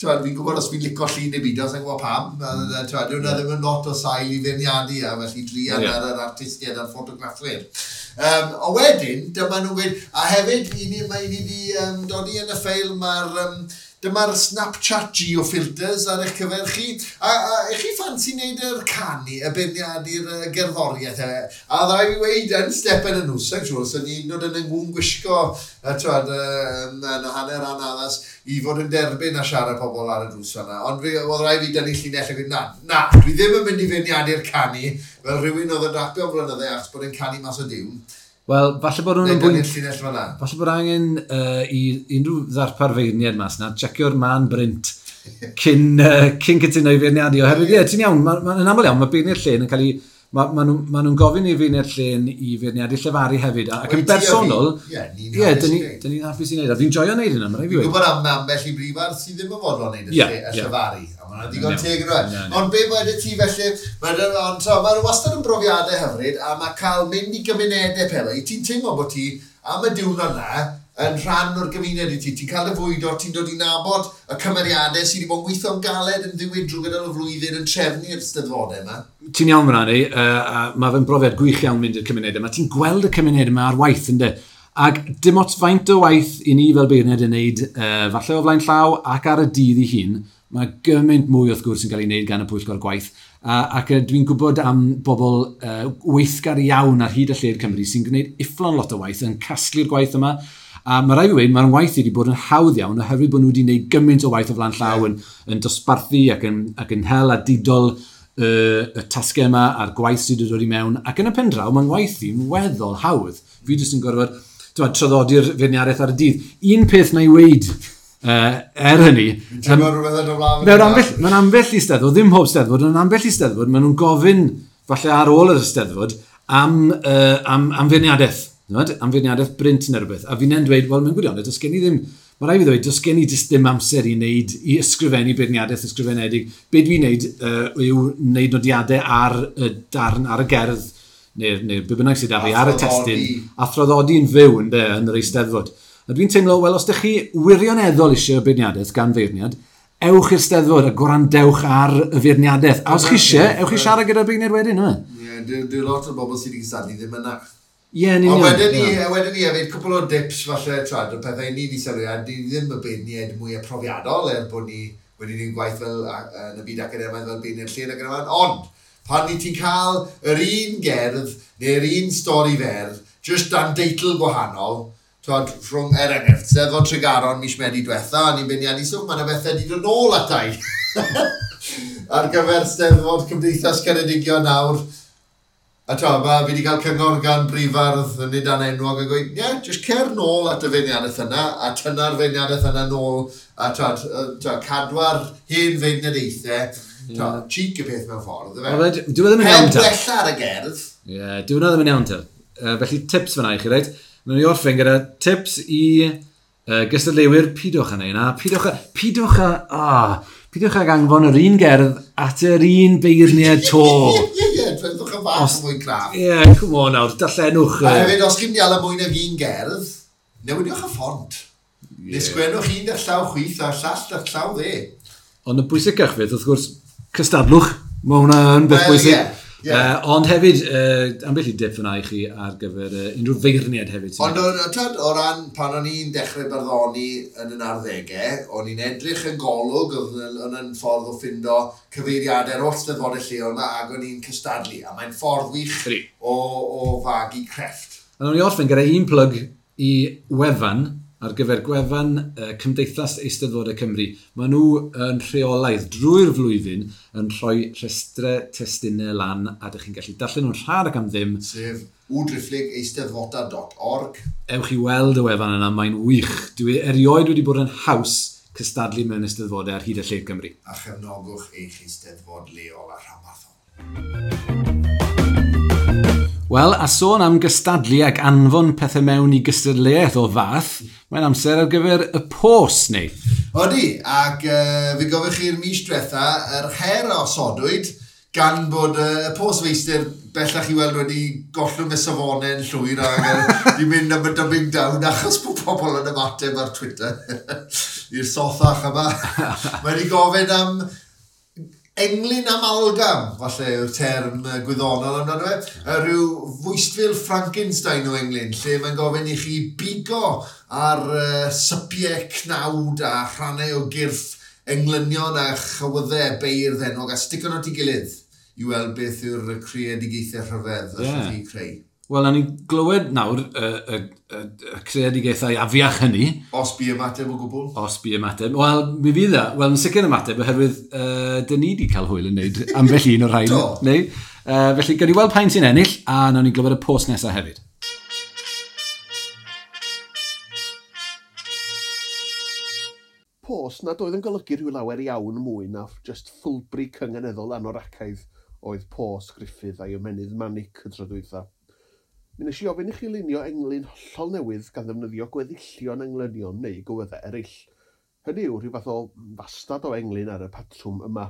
t'wod, fi'n gwybod os fi'n licio llun neu beidio, sa'n gwybod pam. T'wod, dyw hwnna ddim yn lot o sail i feirniadu, a felly druan ar yr artistiaid a'r ffotograffwyr. A wedyn, dyma nhw'n gweud, a hefyd, i ni, mae i ni wedi dodi yn y ffeil, mae'r Dyma'r Snapchat geofilters ar eich cyfer chi. A chi ffansi wneud yr canu, y beirniadu'r gerddoriaeth. A dda i fi weud yn stepen y nhw, sa'n siŵr, sy'n ni'n dod yn yngwn gwisgo, twad, yn hanner anaddas, i fod yn derbyn a siarad pobl ar y drws yna. Ond fi, oedd rhaid fi dynnu llinell a gweud, na, na, dwi ddim yn mynd i feirniadu'r canu, fel rhywun oedd yn rapio am blynydde achos bod e'n canu mas o diwn. Wel, falle bod nhw'n bwynt... llinell fan'na. Falle bod angen i unrhyw ddarpar feirniad mas na, checio'r man brint cyn cytuno i feirniadu. Oherwydd, ie, ti'n iawn, yn aml iawn, mae beirniad llên yn cael ei... Mae nhw'n gofyn i feirniad llên i feirniadu llefaru hefyd. Ac yn bersonol, ie, dyn ni'n hapus i wneud. A fi'n joio wneud hynna, mae'n rhaid fi weud. Fi'n gwybod am ambell i brifardd sydd ddim yn fodlon wneud y llefaru. A mae'n ddigon teg yn rhaid. Ond be wedi ti felly, mae'n wastad yn brofiadau hyfryd, a mae cael mynd i gymunedau pethau. Ti'n teimlo bod ti, am y diwrnod na, yn rhan o'r gymuned i ti. Ti'n cael dy fwydo, ti'n dod i nabod y cymeriadau sydd wedi bod yn gweithio'n galed yn ddiwyd drwy gydol y flwyddyn yn trefnu'r steddfodau yma. Ti'n iawn fyna ni, mae fe'n brofiad gwych iawn mynd i'r cymunedau yma. Ti'n gweld y cymuned yma ar waith, ynddo? Ac dim ots faint o waith i ni fel beirniad yn neud, falle o flaen llaw ac ar y dydd ei hun, mae gymaint mwy wrth gwrs yn cael ei wneud gan y pwyllgor gwaith. Ac dwi'n gwybod am bobl weithgar iawn ar hyd y lled Cymru sy'n gwneud ufflon lot o waith yn casglu'r gwaith yma. A mae rhaid fi weud, mae'r waith wedi bod yn hawdd iawn oherwydd bod nhw wedi gwneud gymaint o waith o flaen llaw yn dosbarthu ac yn hel a didol y tasgau yma a'r gwaith sydd wedi dod i mewn. Ac yn y pen draw, mae'n waith i'n weddol hawdd. Fi jyst yn gorfod traddodi'r feirniadaeth ar y dydd. Un peth na i weud er hynny... Mewn ambell i steddfod, ddim pob steddfod, ond ambell i steddfod, maen nhw'n gofyn, falle ar ôl yr steddfod, am feirniadaeth. Am feirniadaeth brint neu rhywbeth. A fi'n dweud, wel, mewn gwirionedd, does gen i ddim, mae rhaid fi ddweud, does gen i jyst ddim amser i wneud, i ysgrifennu beirniadaeth ysgrifenedig. Be dwi'n wneud yw wneud nodiadau ar y darn, ar y gerdd, neu be bynnag sydd 'da fi, ar y testun, a thraddodi'n fyw yn yr eisteddfod. A dwi'n teimlo, wel, os ydych chi wirioneddol eisiau beirniadaeth gan feirniad, ewch i'r steddfod a gwrandewch ar y feirniadaeth. A os chi eisiau, ewch i siarad gyda'r beirniad wedyn, yma. Ie, dyw lot o bobl sydd wedi cystadlu ddim yna. Ie, yn union. Ond wedyn ni hefyd, cwpl o dips falle, twad, o pethau ni wedi sylwi, a ni ddim y beirniaid mwy profiadol, er bod ni wedi gwneud gwaith fel yn y byd academaidd fel beirniad llên ac yn y blaen, ond pan ni ti'n cael yr un gerdd neu'r un stori fer, just dan deitl gwahanol, twad, rhwng, er enghraifft, Steddfod Tregaron mis Medi diwetha, a ni'n beirniadu stwff, mae yna bethau wedi dod nôl atai. Ar gyfer Steddfod Cymdeithas Ceredigion nawr. A tra, fi wedi cael cyngor gan brifardd yn nid anenwog a gweud, ie, yeah, just cer nôl at y feirniadaeth yna, a tynna'r feirniadaeth yna nôl, a tra, cadwa'r hen feirniadaethau, tra, cheek y peth mewn ffordd, ife? Dyw e ddim yn iawn ta. Heb wella ar y gerdd. Ie, dyw e ddim yn iawn ta. Felly tips fyna i chi, reit? Mae'n i orffen gyda tips i gystadleuwyr, pidwch â neud na, pidwch ag anfon yr un gerdd at yr un beirniad to. Ie, dwedwch yn fach mwy craff. Ie, come on nawr, darllenwch. A hefyd, os chi'n dial mwy nag un gerdd, newidiwch y ffont. Yeah. Neu sgwennwch un da'ch llaw chwith a llall da'ch llaw dde. Ond y bwysicach fydd, wrth gwrs, cystadlwch. Mae hwnna yn beth bwysig. Yeah. Yeah. Ond hefyd, ambell i dip fyna i chi ar gyfer unrhyw feirniad hefyd. Ond o ran pan o'n i'n dechrau barddoni yn y 90au, o'n i'n edrych yn Golwg, oedd yn ffordd o ffindo cyfeiriadau'r holl steddfodau lleol yma, ac o'n i'n cystadlu. A mae'n ffordd wych o fagu crefft. A o'n i orffen gyda un plug i wefan, ar gyfer gwefan Cymdeithas Eisteddfodau Cymru. Maen nhw yn rheolaidd drwy'r flwyddyn yn rhoi rhestrau testunau lan a ydych chi'n gallu darllen nhw'n rhad ac am ddim. Sef www.eisteddfodau.org. Ewch i weld y wefan yna, mae'n wych. Dwi erioed wedi bod yn haws cystadlu mewn eisteddfodau ar hyd y lled Cymru. A chefnogwch eich eisteddfod leol a rhanbarthol. Wel, a sôn am gystadlu ac anfon pethau mewn i gystadleuaeth o fath, mae'n amser ar gyfer y pos, neu? Odi, ac fe gofio chi'r mis diwetha, yr her a osodwyd, gan bod y postfeistr bellach i weld wedi gollwng y safonau yn llwyr ac di mynd am y dumbing down achos bod pobl yn ymateb ar Twitter i'r sothach yma. Mae wedi gofyn am Englyn amalgam, falle yw'r term gwyddonol amdano fe. Rhyw fwystfil Frankenstein o englyn, lle mae'n gofyn i chi bigo ar sypiau cnawd a rhannau o gyrff englynion a chywyddau beirdd enwog a stico nhw at ei gilydd i weld beth yw'r creadigaethau rhyfedd allwch chi creu. Wel, nawn ni glywed nawr y creadigaethau afiach hynny. Os bu ymateb o gwbl? Os bu ymateb. Wel, mi fydd e. Wel, yn sicr ymateb, oherwydd dyn ni wedi cael hwyl yn neud ambell un o'r rhain. Do. Neu? Felly, gawn ni weld pa'n sy'n ennill, a nawn ni glywed y post nesaf hefyd. Post nad oedd yn golygu rhyw lawer iawn mwy na just ffwlbri cynganeddol anoracaidd oedd post Gruffydd a'i ymennydd manic y tro dwytha. Mi wnes i ofyn i chi lunio englyn hollol newydd gan ddefnyddio gweddillion englynion neu gywyddau eraill. Hynny yw rhyw fath o fastad o englyn ar y patrwm yma.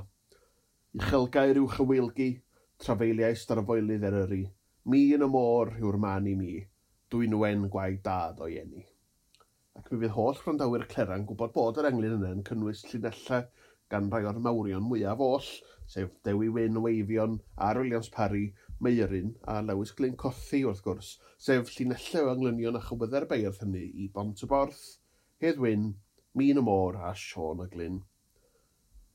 Uchelgair yw chyweilgi, trafeiliais darfoelydd Eryri, mi yn y môr yw'r man i mi, dwynwen gwaed dad o'i eni. Ac mi fydd holl wrandawyr Clera'n gwybod bod yr englyn yna yn cynnwys llinellau gan rai o'r mawrion mwyaf oll, sef Dewi Wyn o Eifion, R Williams Parry, Meuryn a Lewis Glyn Cothi wrth gwrs, sef llinellau o englynion a chywyddau'r beirdd hynny i Bont y Borth, Hedd Wyn, Min y Môr a Siôn y Glyn.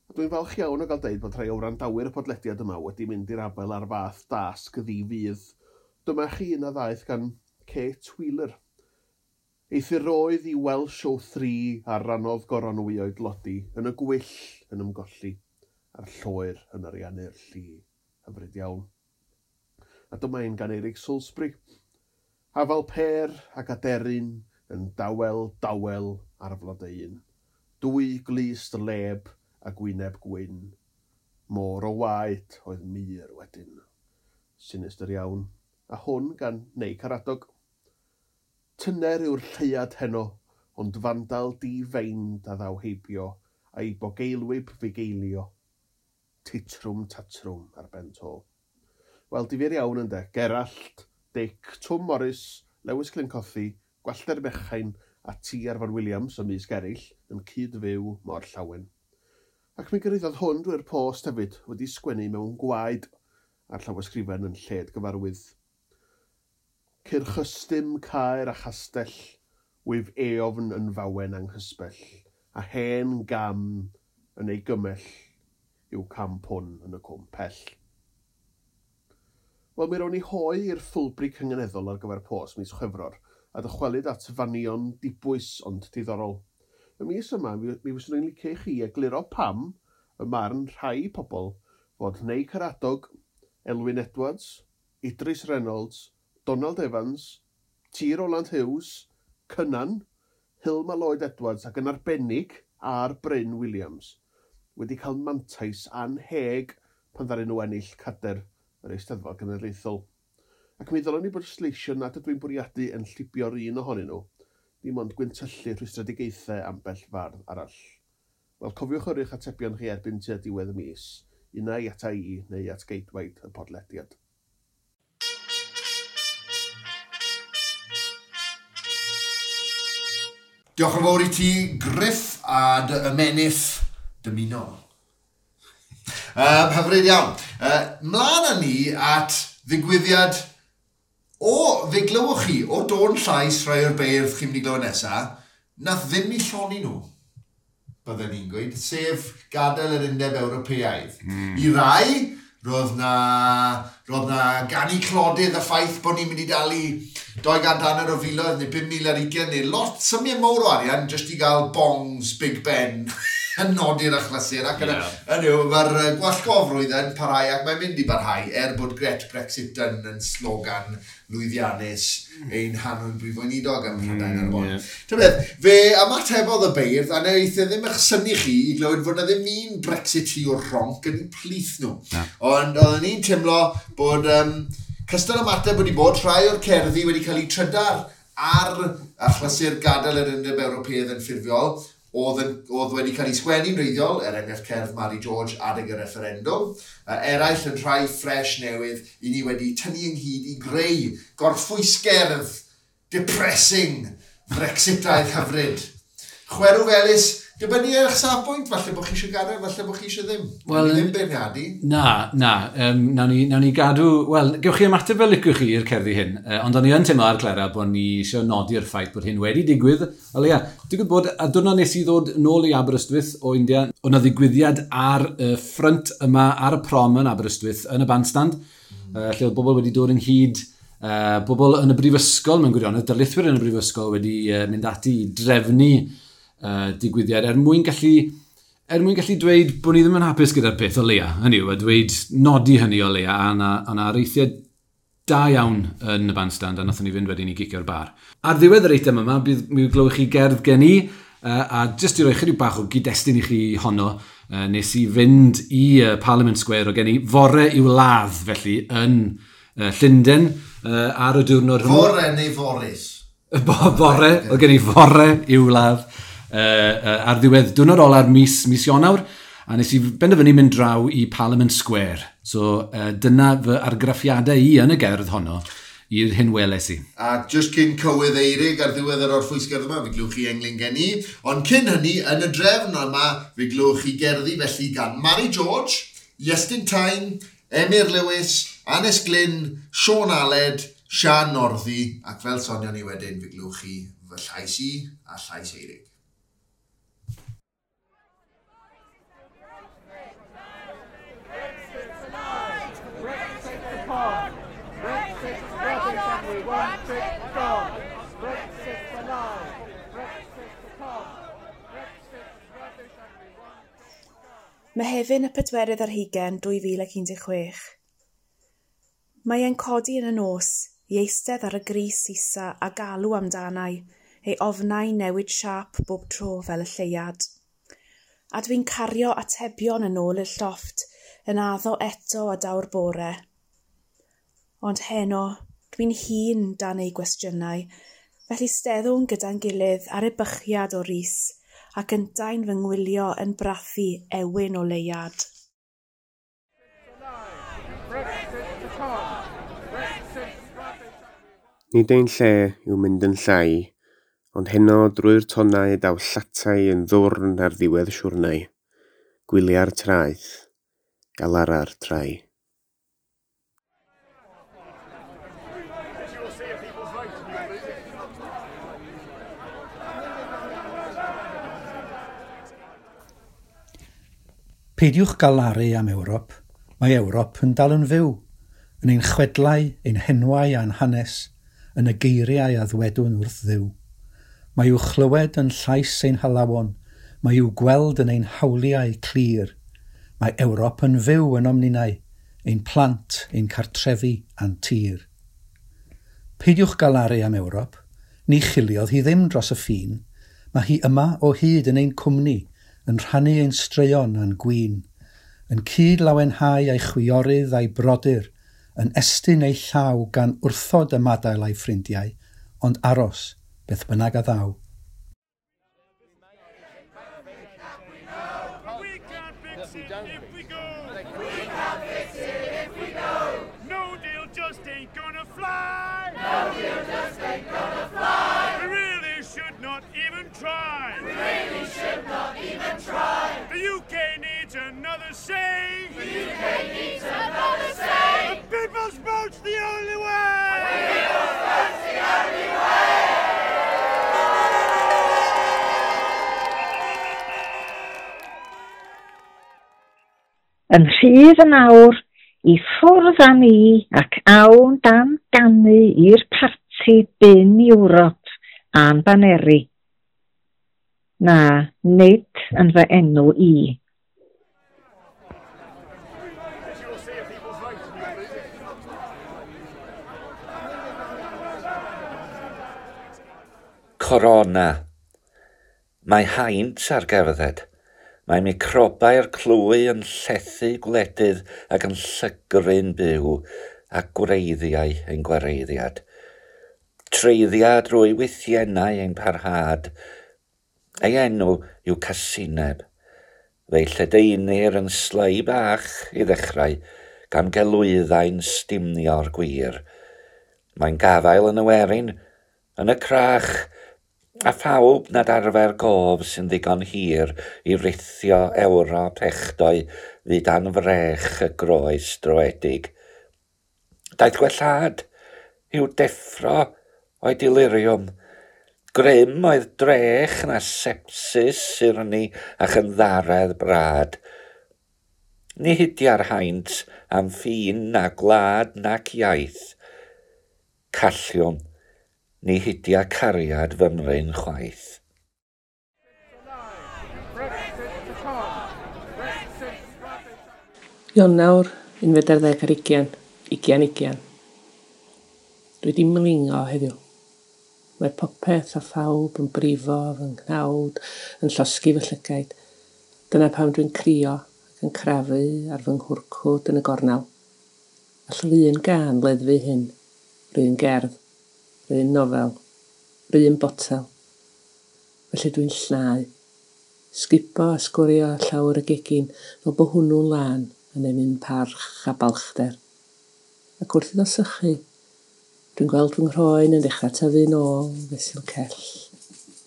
A dwi'n falch iawn o gael deud bod rhai o wrandawyr y podlediad yma wedi mynd i'r afael ar fath dasg ddi-fudd. Dyma chi un a ddaeth gan Kate Wheeler. Eithyroedd i Welsh o 3 ar rannodd goronwy o'i dlodi yn y gwyll yn ymgolli a'r lloer yn ariannu'r lli. Hyfryd iawn. A dyma un gan Eric Salisbury. Hafal per ac aderyn yn dawel dawel ar flodeuyn. Dwy glust leb a gwyneb gwyn. Môr o waed oedd mur wedyn. Sinistr iawn. A hwn gan Neu Caradog. Tyner yw'r lleuad heno, ond fandal di-feind a ddaw heibio, a'i bogeilwyb fugeilio. Titrwm tatrwm ar ben to. Wel, difyr iawn ynde. Gerallt, Dic, Twm Morris, Lewis Glyn Cothi, Gwallter Mechain a T. Arfon Williams ymysg eraill yn cyd-fyw mor llawen. Ac mi gyrhaeddodd hwn drwy'r post hefyd, wedi sgwennu mewn gwaed a'r llawysgrifen yn lled gyfarwydd. Cyrchystym caer a chastell, wyf eofn yn fawen anghysbell, a hen gam yn ei gymell yw cam pwn yn y cwm pell. Wel, mi rown ni hoe i'r ffwlbri cynganeddol ar gyfer post mis Chwefror, a dychwelyd at fanion dibwys ond diddorol. Y mis yma, mi fyswn i'n licio i chi egluro pam y marn rhai pobl fod Neu Caradog, Elwyn Edwards, Idris Reynolds, Donald Evans, T. Roland Hughes, Cynan, Hilma Lloyd Edwards ac yn arbennig ar Bryn Williams wedi cael mantais anheg pan ddaru nhw ennill cader yr Eisteddfod Genedlaethol. Ac mi ddylwn i bod sleisio nad ydw i'n bwriadu yn llibio'r un ohonyn nhw, dim ond gwyntyllu rhwystredigaethau ambell fardd arall. Wel, cofiwch yrru'ch atebion chi erbyn tua diwedd y mis, unai ata i neu at geidwaid y podlediad. Diolch yn fawr i ti, Griff, a dy ymennydd dymunol. Hyfryd iawn. Mlaen â ni at ddigwyddiad o, fe glywch chi, o dôn llais rhai o'r beirdd chi'n mynd i glywed nesaf, nath ddim i llonni nhw, bydden ni'n gweud, sef gadael yr Undeb Ewropeaidd. I rai, roedd na ganu clodydd y ffaith bod ni'n mynd i dalu 250 o filoedd neu 5,020 neu lot, symiau mawr o arian jyst i gael bongs Big Ben yn nodi'r achlysur. Ac yn yw, mae'r gwallgofrwydd yn parhau ac mae'n mynd i barhau er bod Gret Brexit yn slogan lwyddiannus ein hanwyl brif weinidog ym Mhrydain ar y bôn. Ta beth, fe ymatebodd y beirdd a wnaeth e ddim eich synnu chi i glywed fod na ddim un Brexiteer rhonc yn eu plith nhw. Ond oedden ni'n teimlo bod cystal ymateb wedi bod rhai o'r cerddi wedi cael eu trydar ar achlysur gadael yr Undeb Ewropeaidd yn ffurfiol, oedd wedi cael ei sgwennu'n wreiddiol, er enghraifft cerdd Mary George adeg y referendwm, eraill yn rhai ffres newydd i ni wedi tynnu ynghyd i greu gorffwysgerdd depressing Brexitaidd hyfryd. Chwerw felys Dibynnu ar eich safbwynt, falle bod chi eisiau gadael, falle bod chi eisiau ddim. Wel, Wel, ddim beirniadu. Na, na. Nawn ni gadw. Wel, gewch chi ymateb fel licwch chi i'r cerddi hyn, ond o'n i yn teimlo ar Clera bod ni eisiau nodi'r ffaith bod hyn wedi digwydd. O leia, digwydd bod, a diwrnod nes i ddod nôl i Aberystwyth o India, oedd 'na ddigwyddiad ar y ffrynt yma, ar y prom yn Aberystwyth, yn y bandstand, lle oedd bobl wedi dod ynghyd, bobl yn y brifysgol mewn gwirionedd, darlithwyr yn y brifysgol wedi mynd ati i drefnu digwyddiad er mwyn gallu dweud bod ni ddim yn hapus gyda'r peth o leia, hynny yw, a dweud nodi hynny o leia, a na areithiau da iawn yn y bandstand, a nathon ni fynd wedyn i gicio'r bar. Ar ddiwedd yr eitem yma, bydd mi glywch chi gerdd gen i, a jyst i roi chydig bach o gyd-destun i chi honno, nes i fynd i Parliament Square o gen i fore i'w ladd, felly, yn Llundain, ar y diwrnod hwnnw. Fore neu foris? Bore, oedd gen i fore i'w ladd ar ddiwedd diwrnod ola'r mis Ionawr, a nes i benderfynu mynd draw i Parliament Square. So dyna fy argraffiadau i yn y gerdd honno i'r hyn weles i. A just cyn cywydd Eirig ar ddiwedd yr orffwysgerdd yma, fe glywch chi englyn gen i. Ond cyn hynny, yn y drefn yma, fe glywch chi gerddi felly gan Mary George, Iestyn Tyne, Emyr Lewis, Anes Glyn, Sean Aled, Sian Northy, ac fel sonion ni wedyn, fe glywch chi fy llais i a llais Eirig. Brexit to come. Brexit's rubbish and we want it gone. Brexit's a lie. Brexit to come. Brexit's rubbish and we want it gone. Mehefin y 24 2016. Mae e'n codi yn y nos i eistedd ar y gris isa a galw amdanai, ei ofnau newid siâp bob tro fel y lleuad. A dwi'n cario atebion yn ôl i'r llofft, yn addo eto a daw'r bore. Ond heno, dwi'n hun dan ei gwestiynau, felly steddwn gyda'n gilydd ar ebychiad o ris, ac yntau'n fy ngwylio yn brathu ewyn o leuad. Brexit to come. Brexit's rubbish and we want Nid ein lle yw mynd yn llai, ond heno drwy'r tonnau daw llatai yn ddwrn ar ddiwedd siwrnai. Gwylia'r traeth, galara'r trai. Peidiwch galaru am Ewrop. Mae Ewrop yn dal yn fyw, yn ein chwedlau, ein henwau a'n hanes, yn y geiriau a ddwedwn wrth Dduw. Mae i'w chlywed yn llais ein halawon, mae i'w gweld yn ein hawliau clir. Mae Ewrop yn fyw ynom ninnau, ein plant, ein cartrefi a'n tir. Peidiwch galaru am Ewrop, ni chiliodd hi ddim dros y ffin. Mae hi yma o hyd yn ein cwmni, yn rhannu ein straeon a'n gwin, yn cyd lawenhau ei chwiorydd a'i brodyr, yn estyn ei llaw gan wrthod ymadael a'i ffrindiau, ond aros, beth bynnag a ddaw. We can't fix it if we go. We can't fix it if we go. No deal just ain't gonna fly. No deal just ain't gonna fly. We really should not even try. We really should not even try. The UK needs another say. The UK needs another say. The people's vote's the only way. The people's vote's the only way. Yn rhydd yn awr, i ffwrdd â ni ac awn dan ganu i'r parti bin Ewrop a'n baneri. Na, nid yn fy enw i. People's Corona. Mae haint ar gerdded. Mae microbau'r clwy yn llethu gwledydd ac yn llygru'n byw a gwreiddiau ein gwareiddiad. Treiddia drwy wythiennau ein parhad. Ei enw yw casineb. Fe'i lledaenir yn slei bach i ddechrau, gan gelwyddau'n stumio'r gwir. Mae'n gafael yn y werin, yn y crach, A phawb nad arfer gof sy'n ddigon hir i rithio Ewrop echdoi fyd anfrech y groes droedig. Daeth gwellhad i'w deffro o'i deliriwm. Grym oedd drech na sepsis syrni a chynddaredd brad. Ni hidia'r haint am ffin na gwlad nac iaith. Calliwm, ni hidia cariad fymryn chwaith. Ionawr, 21, 2020. Dwi 'di mlingo heddiw. Mae popeth a phawb yn brifo fy nghnawd, yn llosgi fy llygaid. Dyna pam dwi'n crio ac yn crafu ar fy nghwrcwd yn y gornel. All yr un gân leddfu hyn, yr un gerdd, yr un nofel, yr un botel. Felly dwi'n llnau. Sgubo a sgwrio llawr y gegin fel bo hwnnw'n lân yn ennyn parch a balchder. Ac wrth iddo sychu, dwi'n gweld fy nghroen yn dechrau tyfu'n ôl fesul cell,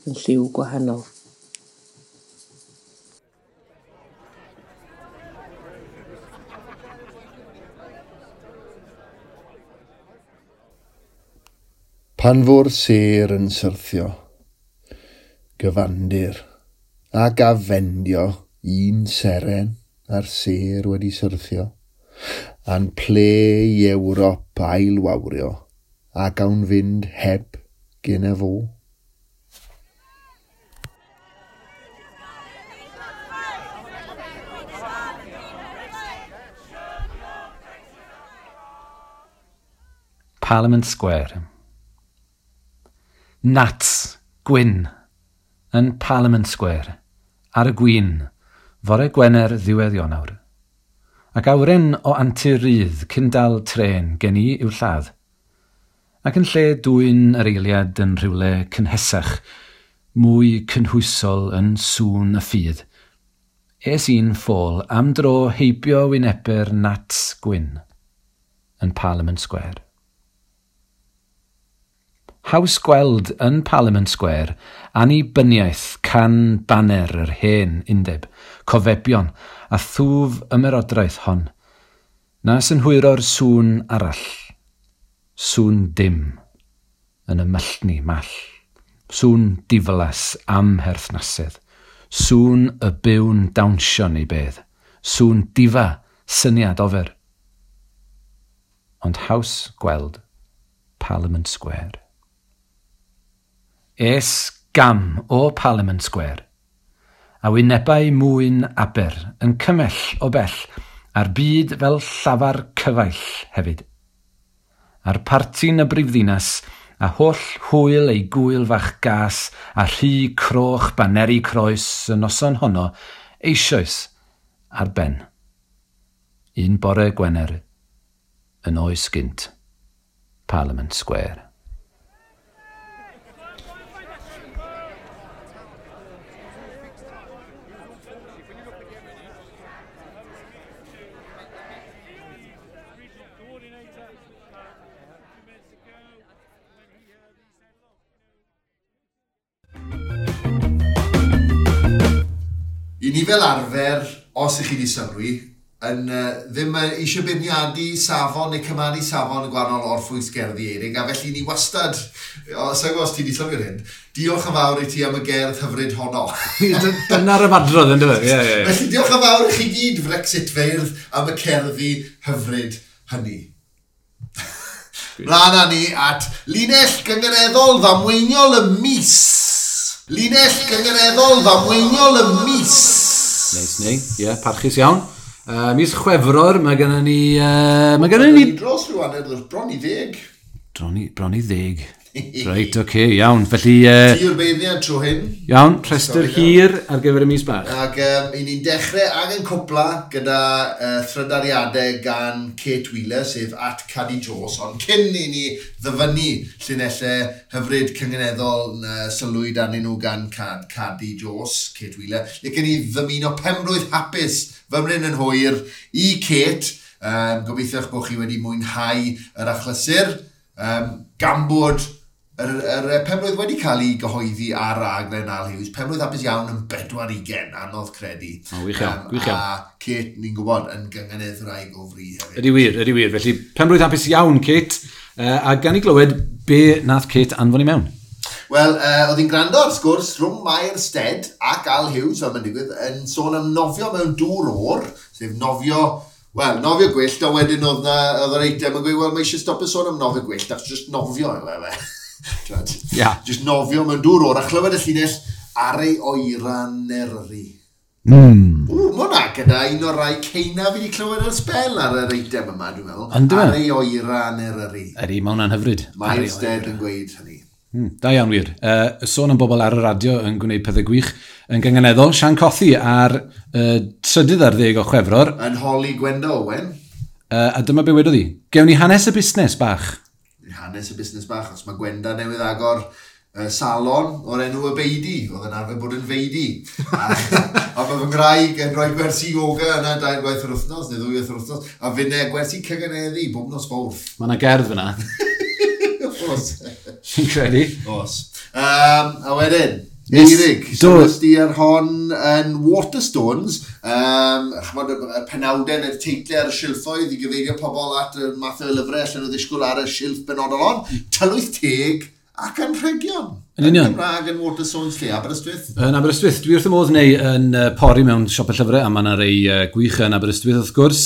yn lliw gwahanol. Pan fo'r sêr yn syrthio, gyfandir ac afendio un seren a'r sêr wedi syrthio, a'n ple i Ewrop ailwawrio, a gawn fynd heb gen y fo. Parliament Square. Nats, gwyn, yn Parliament Square, ar y gwyn, fore Gwener ddiwedd Ionawr. Ac awyren o antur rydd cyn dal trên gen i i'w lladd. Ac yn lle dwyn yr eiliad yn rhywle cynhesach, mwy cynhwysol yn sŵn y ffydd, es i'n ffôl am dro heibio wynebu'r Nats gwyn yn Parliament Square. Haws gweld yn Parliament Square annibyniaeth can baner yr hen undeb, cofebion a thwf ymerodraeth hon, na synhwyro'r sŵn arall, sŵn dim, yn y myllni mall, sŵn diflas amherthnasedd, sŵn y byw'n dawnsio neu bedd, sŵn difa syniad ofer. Ond haws gweld Parliament Square. Es gam o Parliament Square, a wynebau mwyn Aber yn cymell o bell, a'r byd fel llafar cyfaill hefyd. A'r parti'n y brifddinas, a holl hwyl ei gwyl fach gas, a rhy croch baneri croes y noson honno, eisoes ar ben. Un bore Gwener, yn oes gynt, Parliament Square. I ni fel arfer, os ych chi wedi sylwi, yn ddim eisiau beirniadu safon neu cymaru safon y gwahanol orffwys gerddi Eirig, a felly ni wastad, os os ti wedi sylwi'r hyn, diolch yn fawr i ti am y gerdd hyfryd honno. Dyna'r ymadrodd, ynddo fe? Yeah, yeah, yeah. Felly diolch yn fawr i chi gyd, Brexit feirdd, am y cerddi hyfryd hynny. Mlaen â ni at linell gynganeddol ddamweiniol y mis. Linell gynganeddol ddamweiniol y mis. Neis, nei. Ie, yeah, parchus iawn. Mis Chwefror, mae gennym ni... mae gennym ni... Dros rhyw hanner, bron i 10. Bron i 10. Reit, oce, okay, iawn. Felly... Ti yw'r beirniad tro hyn. Iawn, rhestr hir ar gyfer y mis bach. Ac i ni'n dechrau ag yn cwpla gyda thrydariadau gan Kate Wheeler, sef at Caddy Jones, ond cyn i ni ddyfynnu llinellau hyfryd cynganeddol sylwyd arnyn nhw gan Caddy Jones, Kate Wheeler, lle gen i ddymuno penblwydd hapus fymryn yn hwyr i Kate. Gobeithio bod chi wedi mwynhau yr achlysur, gan bod Yr penblwydd wedi cael ei gyhoeddi ar raglen Al Hughes, penblwydd hapus iawn yn 40, anodd credu. O, wych iawn, gwych iawn. A Kate, ni'n gwybod, yn gynganeddwraig o fri hefyd. Ydy wir, ydy wir. Felly, penblwydd hapus iawn, Kate. A gan i glywed be nath Kate anfon i mewn. Wel, oedd hi'n gwrando ar sgwrs rhwng Mair Stead ac Al Hughes, fel mae'n digwydd, yn sôn am nofio mewn dŵr oer, sef nofio, wel, nofio gwyllt, a wedyn oedd yr eitem yn gweud, wel, mae eisiau stopio sôn am nofio gwyllt, achos just nofio yw e. Yeah. Just nofio mewn dŵr oer, a chlywed y llinell ar ei oeran Eryri. Mm. Ww, mae hwnna gyda un o'r rai ceina fi wedi clywed ar sbel ar yr eitem yma, dwi'n meddwl. On'd yw e? Ar ei oeran Eryri. Ydy, mae hwnna'n hyfryd. Mair Stead yn gweud hynny. Da iawn wir. Sôn am bobl ar y radio yn gwneud pethau gwych yn gynganeddol. Sian Cothi ar 13 o Chwefror. Yn holi Gwenda Owen. A dyma be wedodd hi. Gewn ni hanes y busnes bach. Hanes y busnes bach, os mae Gwenda newydd agor salon o'r enw y Beidi, oedd yn arfer bod yn Feidi. A mae fy ngwraig yn rhoi gwersi yoga yna 2 gwaith yr wythnos, neu 2 waith yr wythnos, a finne gwersi cyganeddu bob nos Fawrth. Mae yna gerdd fyna. Os. Fi'n credu. Os. A wedyn, Eirig, sylwes di ar hon yn Waterstones, ch'mod, y penawdau neu'r teitlau ar y silffoedd i gyfeirio pobl at y math o lyfrau allan nhw ddisgwyl ar y silff benodol hon, tylwyth teg ac anrhegion. Yn union. Yn Gymraeg yn Waterstones lle, Aberystwyth. Yn Aberystwyth, dwi wrth y modd neu yn pori mewn siop y llyfrau, a mae yna rei gwych yn Aberystwyth wrth gwrs,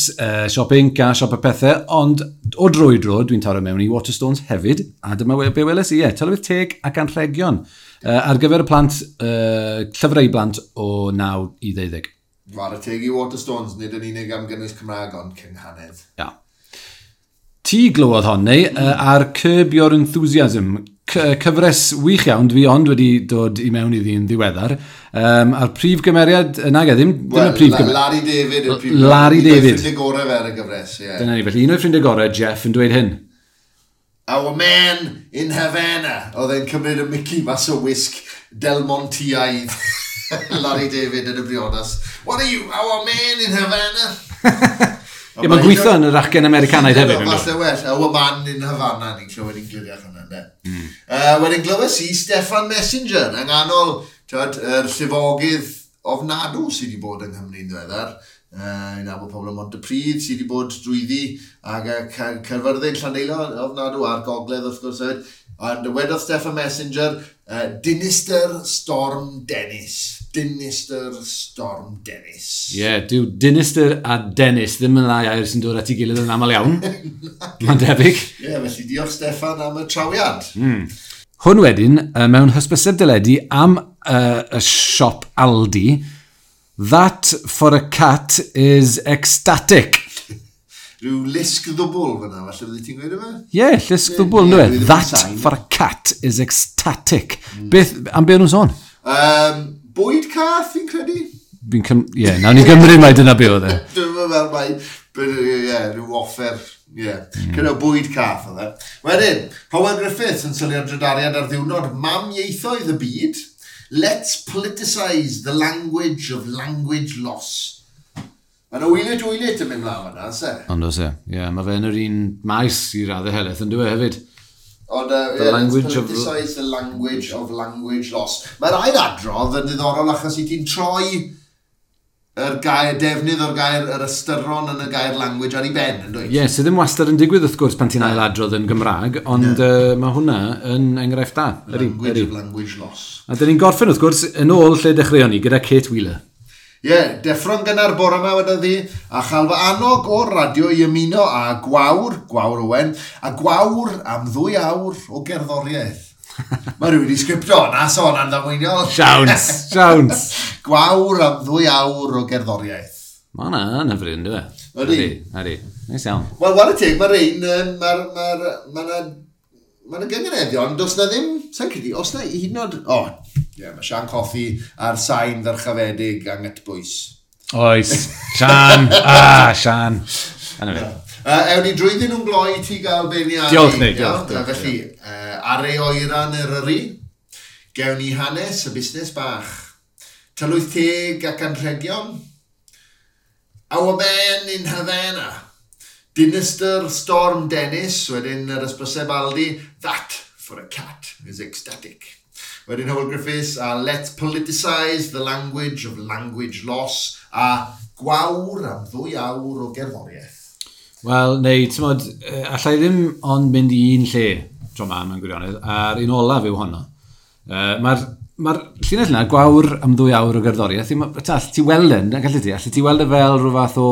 siop Inc a siop y pethau, ond o dro i dro dwi'n taro mewn i Waterstones hefyd, a dyma be weles i, tylwyth teg ac anrhegion. Ar gyfer y plant, llyfrau i blant o 9 i 12. Whare teg i Waterstones, nid yn unig am gynnwys Cymraeg, ond cynghanedd. Ia. Ti glywodd hon, neu, ar Curb Your Enthusiasm, cyfres wych iawn, dwi ond wedi dod i mewn iddi yn ddiweddar. A'r prif gymeriad, nag e, ddim y prif gymeriad. Larry David yw'r prif Larry David. Un o'i ffrindiau gorau fe ar y gyfres, ie. Dyna ni, felly un o'i ffrindiau gorau, Jeff, yn dweud hyn. Our man in Havana. Oedd e'n cymryd y Mickey mas o wisg Del Monteaidd. Larry David yn y briodas. What are you, our man in Havana? Ie, mae'n gweithio yn yr acen Americanaidd hefyd. Falle well, our man in Havana, ni'n clywed yn gliriach hwnna, ynde. Wedyn glywes i Steffan Messenger, yng nghanol, twyd, yr llifogydd ofnadw sydd wedi bod yng Nghymru'n ddiweddar. I'n nabod pobl ym Mhontypridd sydd wedi bod drwyddi ac Caerfyrddin, Llandeilo ofnadw a'r gogledd wrth gwrs hefyd. Ond wedodd Steffan Messenger, Dinister Storm Dennis. Dinister Storm Dennis. Ie, yeah, dyw Dinister a Dennis ddim yn ddau air sy'n dod at ei gilydd yn aml iawn. Mae'n debyg. Ie, yeah, felly diolch Steffan am y trawiad. Hwn wedyn, mewn hysbyseb deledu am y siop Aldi, That for a cat is ecstatic. Rhyw lusg ddwbl fyna, falle bydde ti'n gweud yma? Ie, yeah, llusg ddwbl, ynddo e? That for a cat is ecstatic. Beth, am be o'n nhw'n sôn? Bwyd cath, fi'n credu? Ie, nawn ni gymryd mai dyna be oedd e. Dwi'n meddwl mai, ie, rhyw offer, ie. Cyda bwyd cath oedd e. Wedyn, Howell Griffiths yn sylwi ar drydariad ar ddiwrnod mam ieithoedd y byd. Let's politicise the language of language loss. Mae'n wylit wylit yn mynd mlaen fyna, se? Ond oes e, ie, mae fe yn yr un maes i raddau helaeth yn dwi hefyd. Ond, yeah, let's politicise the language of language loss. Mae'r ail adrodd yn ddiddorol achos i ti'n troi yr gair, defnydd o'r gair, yr ystyron yn y gair language ar ei ben, yn dweud? Ie, yeah, sydd ddim wastad yn digwydd wrth gwrs pan ti'n ail adrodd yn Gymraeg, ond mae hwnna yn enghraifft da. Language of language loss. A dyn ni'n gorffen wrth gwrs yn ôl lle dechreuon ni gyda Kate Wheeler. Ie, yeah, deffro'n gynnar bore yma wedodd hi, a chael fy annog o'r radio i ymuno â Gwawr, Gwawr Owen, a Gwawr am 2 awr o gerddoriaeth. Mae rhywun wedi sgriptio, na sôn am ddamweiniol. Siawns, siawns. Gwawr am 2 awr o gerddoriaeth. Mae hwnna yn hyfryd, ynddo fe? Ydy. Ydy, neis iawn. Wel, whare teg, mae rhain, mae yna gyngeneddion, does na ddim, sa'n credu, os na hyd yn oed, o, ie, mae Sian Cothi a'r sain ddyrchafedig angytbwys. Oes, Sian, Sian. Anna fe. Ewn ni drwyddyn nhw'n gloi ti gael beirniadu. Diolch, Nick. Diolch. Felly, ar ei oeran Eryri, gewn ni hanes y busnes bach. Tylwyth teg ac anrhegion. Our man in Havana. Dinister Storm Dennis, wedyn yr ysbryseb Aldi, that for a cat is ecstatic. Wedyn Hywel Griffiths a Let's Politicise the Language of Language Loss a Gwawr am 2 awr o gerddoriaeth. Wel, neu, ti'n modd, allai ddim ond mynd i un lle tro ma mewn gwirionedd, a'r un olaf yw honno. Mae'r llinell yna, gwawr am 2 awr o gerddoriaeth, ti weld e, gallu ti? Allu ti weld e fel rhyw fath o,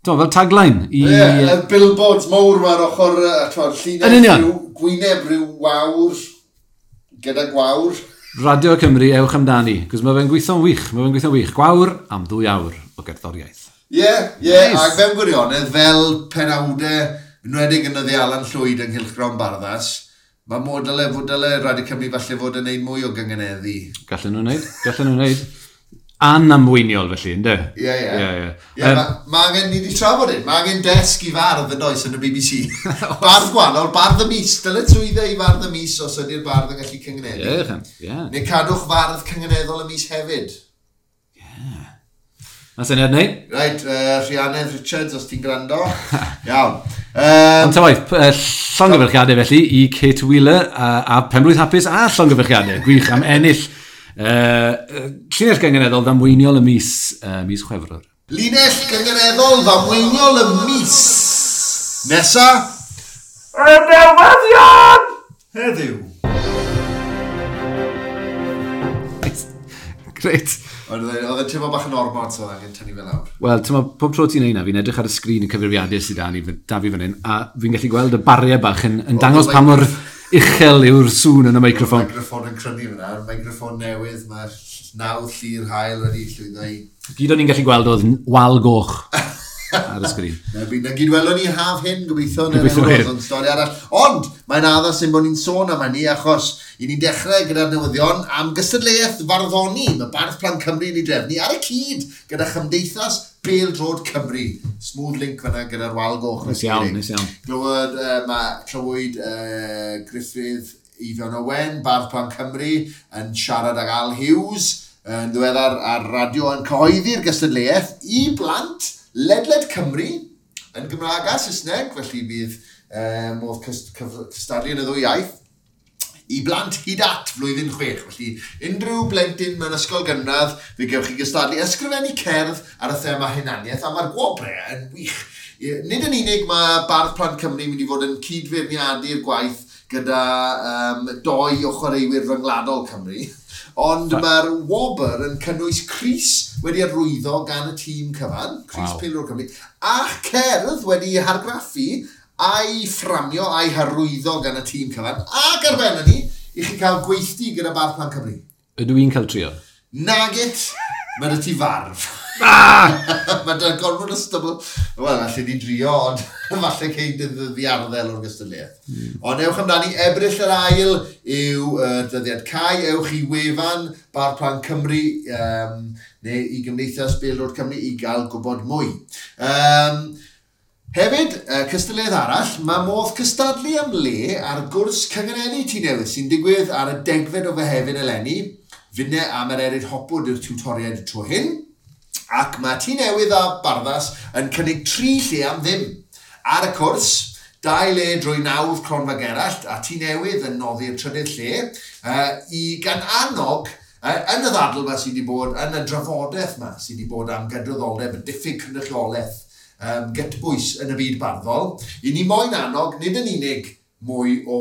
fel tagline i... Ie, yeah, billboards mawr ma'r ochr, llinell rhyw gwyneb rhyw wawr, gyda gwawr. Radio Cymru, ewch amdani, cos mae fe'n gweithio'n wych, mae fe'n gweithio'n wych. Gwawr am 2 awr o gerddoriaeth. Ie, yeah, ac mewn gwirionedd, fel penawdau, enwedig yn y Alan Llwyd yng Nghylchgrawn Barddas, mae mod dyle Radio Cymru falle fod yn neud mwy o gyngeneddu. Gallen nhw'n neud, gallen nhw'n neud. Anamweiniol felly, ynddo? Ie. Mae angen, ni wedi trafod hyn, mae angen desg i fardd yn oes yn y BBC. Bardd gwahanol, bardd y mis, dyle trwyddo i fardd y mis os ydy'r bardd yn gallu cyngeneddu. Ie. Neu cadwch fardd cyngeneddol y mis hefyd. Ie. Mae'n syniad neu? Reit, Rhianedd Richards, os ti'n gwrando. Iawn. Ond ta waith, llongyfarchiadau felly i Kate Wheeler a Penblwydd Hapus a llongyfarchiadau. Gwych am ennill llinell gyngeneddol ddamweiniol y mis, mis Chwefror. Linell gyngeneddol ddamweiniol y mis. Nesa. Y newyddion! Heddiw. Greit. Oedd e'n teimlo bach yn ormod, so oedd angen tynnu fe lawr. Wel, ti'n meddwl, pob tro ti'n neud na, fi'n edrych ar y sgrin y cyfrifiadur sydd da fi fan hyn, a fi'n gallu gweld y bariau bach yn dangos pa mor uchel yw'r sŵn yn y meicroffon. Mae'r meicroffon yn crynu fyna, mae'r meicroffon newydd, mae'r nawdd llu'r haul wedi llwyddo i... Gyd o'n i'n gallu gweld oedd wal goch ar y sgrin. Na gyd welwn ni haf hyn, gobeithio, ond stori arall. Ond, mae'n addas ein bod ni'n sôn am hynny, achos i ni'n dechrau gyda'r newyddion am gystadleuaeth farddoni. Mae Bardd Plant Cymru yn ei drefnu ar y cyd gyda Chymdeithas Bêl-droed Cymru. Smooth link fyna gyda'r wal goch. Nes iawn, nes iawn. Clywyd Gruffydd Eifion Owen, Bardd Plant Cymru, yn siarad ag Al Hughes, yn ddiweddar ar radio yn cyhoeddi'r gystadleuaeth i blant ledled Cymru, yn Gymraeg a Saesneg, felly bydd modd cystadlu yn y ddwy iaith, i blant hyd at flwyddyn 6. Felly unrhyw blentyn mewn ysgol gynradd, fe gewch chi gystadlu ysgrifennu cerdd ar y thema hunaniaeth, a mae'r gwobrau yn wych. Nid yn unig mae Bardd Plant Cymru mynd i fod yn cydfeirniadu'r gwaith gyda 2 o chwaraewyr rhyngwladol Cymru, ond mae'r wobr yn cynnwys crys wedi arwyddo gan y tîm cyfan, crys Pêl-droed Cymru, a cerdd wedi hargraffu a'i fframio a'i harwyddo gan y tîm cyfan, ac ar ben hynny, i chi cael gweithdy gyda Bardd Plant Cymru. Ydw i'n cael trio? Nagit, mae dy ti farf. Mae dy gorfod o stybl. Wel, allai di drio, ond falle cei dy ddiarddel o'r gystadleuaeth. Ond ewch amdani, Ebrill yr ail yw dyddiad cau. Ewch i wefan Bardd Plant Cymru neu i Gymdeithas Bêl-droed Cymru i gael gwybod mwy. Hefyd, cystadleuaeth arall, mae modd cystadlu am le ar gwrs cyngeneddu Tŷ Newydd sy'n digwydd ar y 10fed o Fehefin eleni. Finne a Mererid Hopwood yw'r tiwtoriaid y tro hyn. Ac mae Tŷ Newydd a Barddas yn cynnig 3 lle am ddim. Ar y cwrs, 2 le drwy nawdd Cronfa Gerallt a Tŷ Newydd yn noddi'r 3rd lle i gan annog yn y ddadl yma sydd wedi bod, yn y drafodaeth yma sydd wedi bod am gydraddoldeb y diffyg cynrychiolaeth gytbwys yn y byd barddol. I ni moyn annog, nid yn unig mwy o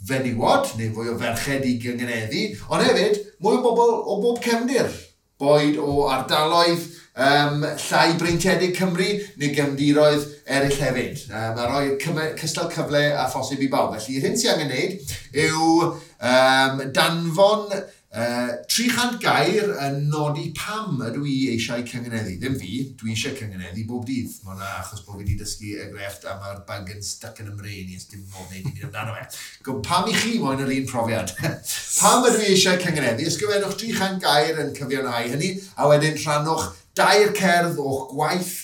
fenywod neu fwy o ferched i gyngeneddu, ond hefyd mwy o bobl o bob cefndir, boed o ardaloedd llai breintiedig Cymru neu gefndiroedd eraill hefyd. Mae rhoi cystal cyfle a phosib i bawb. Felly, yr hyn sy'n angen wneud yw danfon 300 gair yn nodi pam ydw i eisiau cyngeneddu. Ddim fi, dwi eisiau cyngeneddu bob dydd. Mae hwnna achos bod fi wedi dysgu y grefft a mae'r bug yn stuck yn y mrain i, dim modd wneud dim byd amdano fe. Pam i chi moyn yr un profiad? Pam ydw i eisiau cyngeneddu? Ysgrifennwch 300 gair yn cyfiawnhau hynny, a wedyn rhannwch 2 cerdd o'ch gwaith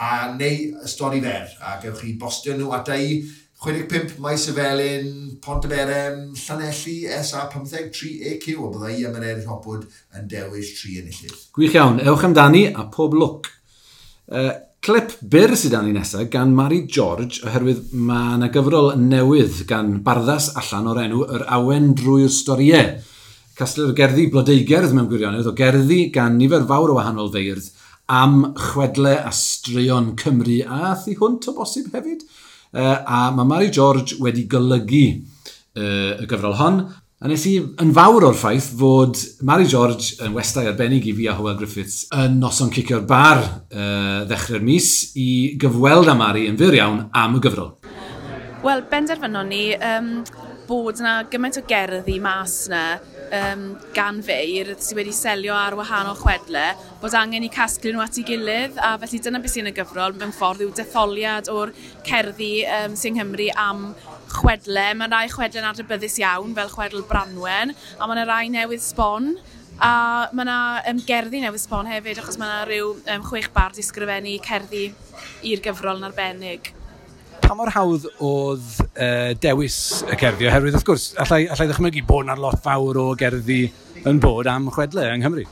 a neu stori fer. A gewch chi bostio nhw ata i 65 Maes y Felin, Pontyberem, Llanelli, SA15 3AQ, a byddai i am Mererid Hopwood yn dewis 3 enillydd. Gwych iawn, ewch amdani a pob lwc. Clip byr sydd dan ni nesaf gan Mari George, oherwydd mae yna gyfrol newydd gan Barddas allan o'r enw Yr Awen Drwy'r Storiau. Casglu'r gerddi blodeugerdd mewn gwirionedd o gerddi gan nifer fawr o wahanol feirdd am chwedle a straeon Cymru a thu hwnt o bosib hefyd. A mae Mari George wedi golygu y gyfrol hon. A nes i yn fawr o'r ffaith fod Mari George yn westai arbennig i fi a Hywel Griffiths yn noson cicio'r bar ddechrau'r mis i gyfweld â Mari yn fyr iawn am y gyfrol. Wel, benderfynon ni bod yna gymaint o gerddi mas yna gan feirdd sydd wedi selio ar wahanol chwedle, bod angen i casglu nhw at ei gilydd, a felly dyna beth sy'n y gyfrol mewn ffordd yw detholiad o'r cerddi sy'n Nghymru am chwedle. Mae rai chwedle'n adnabyddus iawn, fel chwedl Branwen, a mae yna rai newydd sbon, a mae yna gerddi newydd sbon hefyd, achos mae yna rhyw 6 bardd i sgrifennu cerddi i'r gyfrol yn arbennig. Pa mor hawdd oedd dewis y cerddi? Oherwydd, wrth gwrs, allai ddychmygu bod yna lot fawr o gerddi yn bod am chwedle yng Nghymru.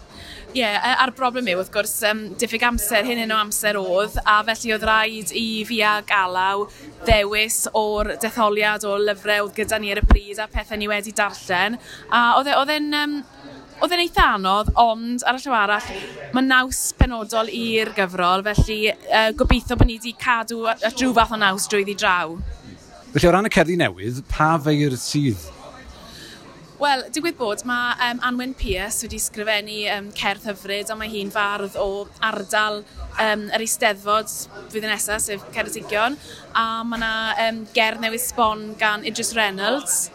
Ie, a'r broblem yw, wrth gwrs, diffyg amser, hyn o amser oedd, a felly oedd rhaid i fi a Galaw ddewis o'r detholiad o lyfrau oedd gyda ni ar y pryd a pethau ni wedi darllen. A oedd e'n eitha anodd, ond ar y llaw arall, mae naws penodol i'r gyfrol, felly gobeithio bod ni wedi cadw at rhyw fath o naws drwyddi draw. Felly o ran y cerddi newydd, pa feirdd sydd? Wel, digwydd bod, mae Anwen Pierce wedi sgrifennu cerdd hyfryd, a mae hi'n fardd o ardal yr Eisteddfod flwyddyn nesaf, sef Ceredigion, a mae yna gerdd newydd sbon gan Idris Reynolds,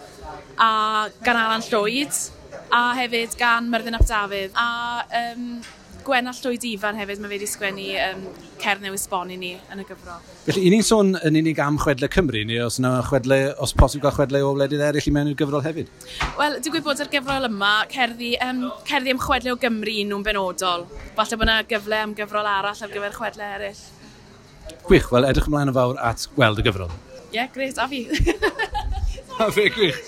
a gan Alan Llwyd, a hefyd gan Myrddin ap Dafydd, a Gwenna Llwyd Ifan hefyd, mae fe wedi sgwennu cerdd newydd sbon i ni yn y gyfrol. Felly, i ni'n sôn yn unig am chwedle Cymru, neu os yna chwedle, os posib gael chwedle o wledydd eraill i mewn i'r gyfrol hefyd? Wel, digwydd bod ar gyfrol yma, cerddi am chwedle o Gymru nhw'n benodol. Falle bod yna gyfle am gyfrol arall ar gyfer chwedle eraill. Gwych, wel, edrych ymlaen yn fawr at gweld y gyfrol. Ie, yeah, gret, a fi. A fi, gwych.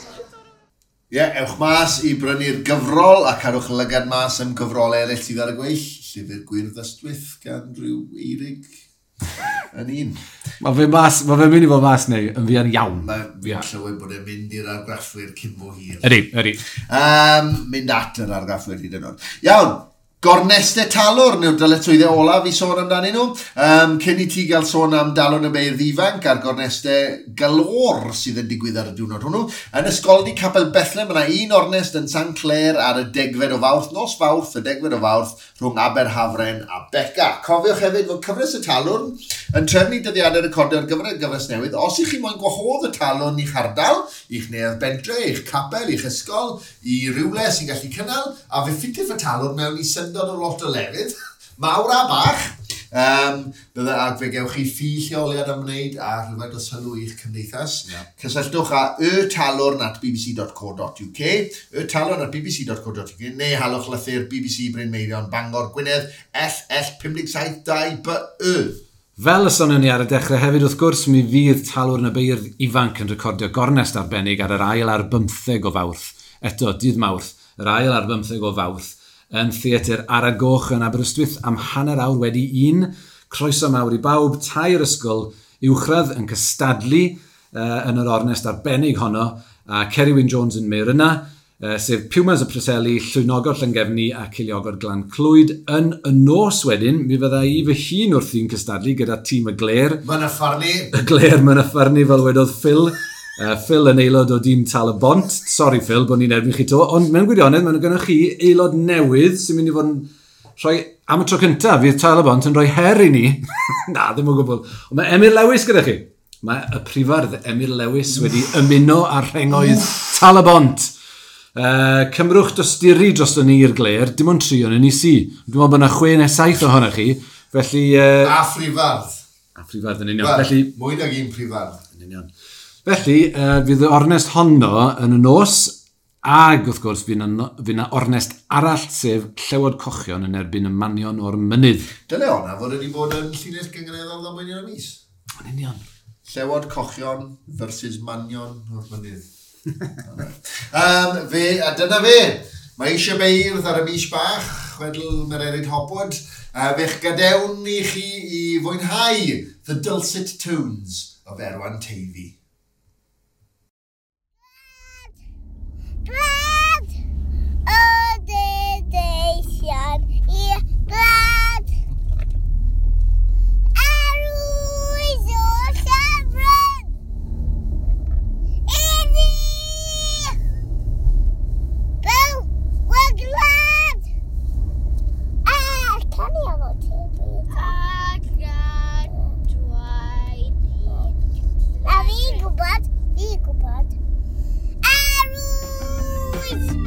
Ie, yeah, ewch mas i brynu'r gyfrol a cadwch lygad mas am gyfrolau eraill sydd ar y gweill. Llyfr Gwyrdd Ystwyth gan rhyw Eirig yn un. Mae fe'n mynd i fod mas neu yn fuan iawn. Mae fi'n clywed bod e'n mynd i'r argraffwyr cyn bo hir. Ydy. Mynd at yr argraffwyr hyd yn oed. Iawn, gornestau Talwrn yw'r dyletswyddau olaf i sôn amdanyn nhw. Cyn i ti gael sôn am Dalwrn y Beirdd Ifanc a'r gornestau galore sydd yn digwydd ar y diwrnod hwnnw. Yn Ysgoldy Capel Bethlehem, mae yna un ornest yn St Clair ar y 10fed o Fawrth, nos Fawrth, y 10fed o Fawrth, rhwng Aberhafren a Beca. Cofiwch hefyd fod cyfres y Talwrn yn trefnu dyddiadau recordio ar gyfer y gyfres newydd. Os ych chi moyn gwahodd y Talwrn i'ch ardal, i'ch neuadd bentre, i'ch capel, i'ch ysgol, i rywle sy'n gallu cynnal, a fe ffitiff y Talwrn mewn i syndod o lot o lefydd, mawr a bach. Ac fe gewch chi ffi lleoliad am wneud a rhywfaint o sylw i'ch cymdeithas. Yeah. Cysylltwch â ytalwrn@bbc.co.uk, ytalwrn@bbc.co.uk, neu halwch lythyr BBC Bryn Meirion, Bangor, Gwynedd, LL57 2BY. Fel y sonion ni ar y dechrau hefyd, wrth gwrs, mi fydd Talwrn y Beirdd Ifanc yn recordio gornest arbennig ar yr 2 o Fawrth. Eto, dydd Mawrth, yr 2 o Fawrth, yn Theatr Ara Goch yn Aberystwyth am 1:30. Croeso mawr i bawb, 3 ysgol uwchradd yn cystadlu yn yr ornest arbennig honno, a Ceri Wyn Jones yn meir yna, sef Pumas y Preseli, Llwynogod Llangefni a Ceiliogod Glan Clwyd. Yn y nos wedyn, mi fydda i fy hun wrthi'n cystadlu gyda tîm y Gler. Mynyffarnu. Y Gler Mynyffarnu, fel wedodd Phil. Phil yn aelod o dîm Tal y Bont. Sorry Phil, bod ni'n erbyn chi to. Ond mewn gwirionedd, mae'n gynnoch chi aelod newydd sy'n mynd i fod yn rhoi, am y tro cyntaf, fydd Tal y Bont yn rhoi her i ni. Na, ddim o gwbl. Ond mae Emyr Lewis gyda chi. Mae y prifardd Emyr Lewis wedi ymuno â'r rhengoedd Tal y Bont. Cymrwch dosturi drosto ni i'r Gler, dim ond 3 o'n ni si. Dwi'n meddwl bod yna 6 neu 7 ohonoch chi. Felly, A phrifardd. A phrifardd yn union. Well, felly, mwy nag un prifardd. Yn union. Felly, fydd y ornest honno yn y nos, ag wrth gwrs fydd yna ornest arall, sef Llewod Cochion yn erbyn y Manion o'r Mynydd. Dyle honna fod wedi bod yn llinell gynganeddol ddamweinion y mis. Yn union. Llewod Cochion versus Manion o'r Mynydd. A dyna fe. Mae eisiau beirdd ar y mis bach, chwedl Mererid Hopwood. Fe'ch gadewn i chi i fwynhau The Dulcet Tones of Erwan Teifi. Glad o dedeisian i glad. Arwydd o llyfryn. Iddi! Byw y glad! A, can i efo ti? A gadwaid i. Na fi'n gwybod, fi'n gwybod. Arwydd!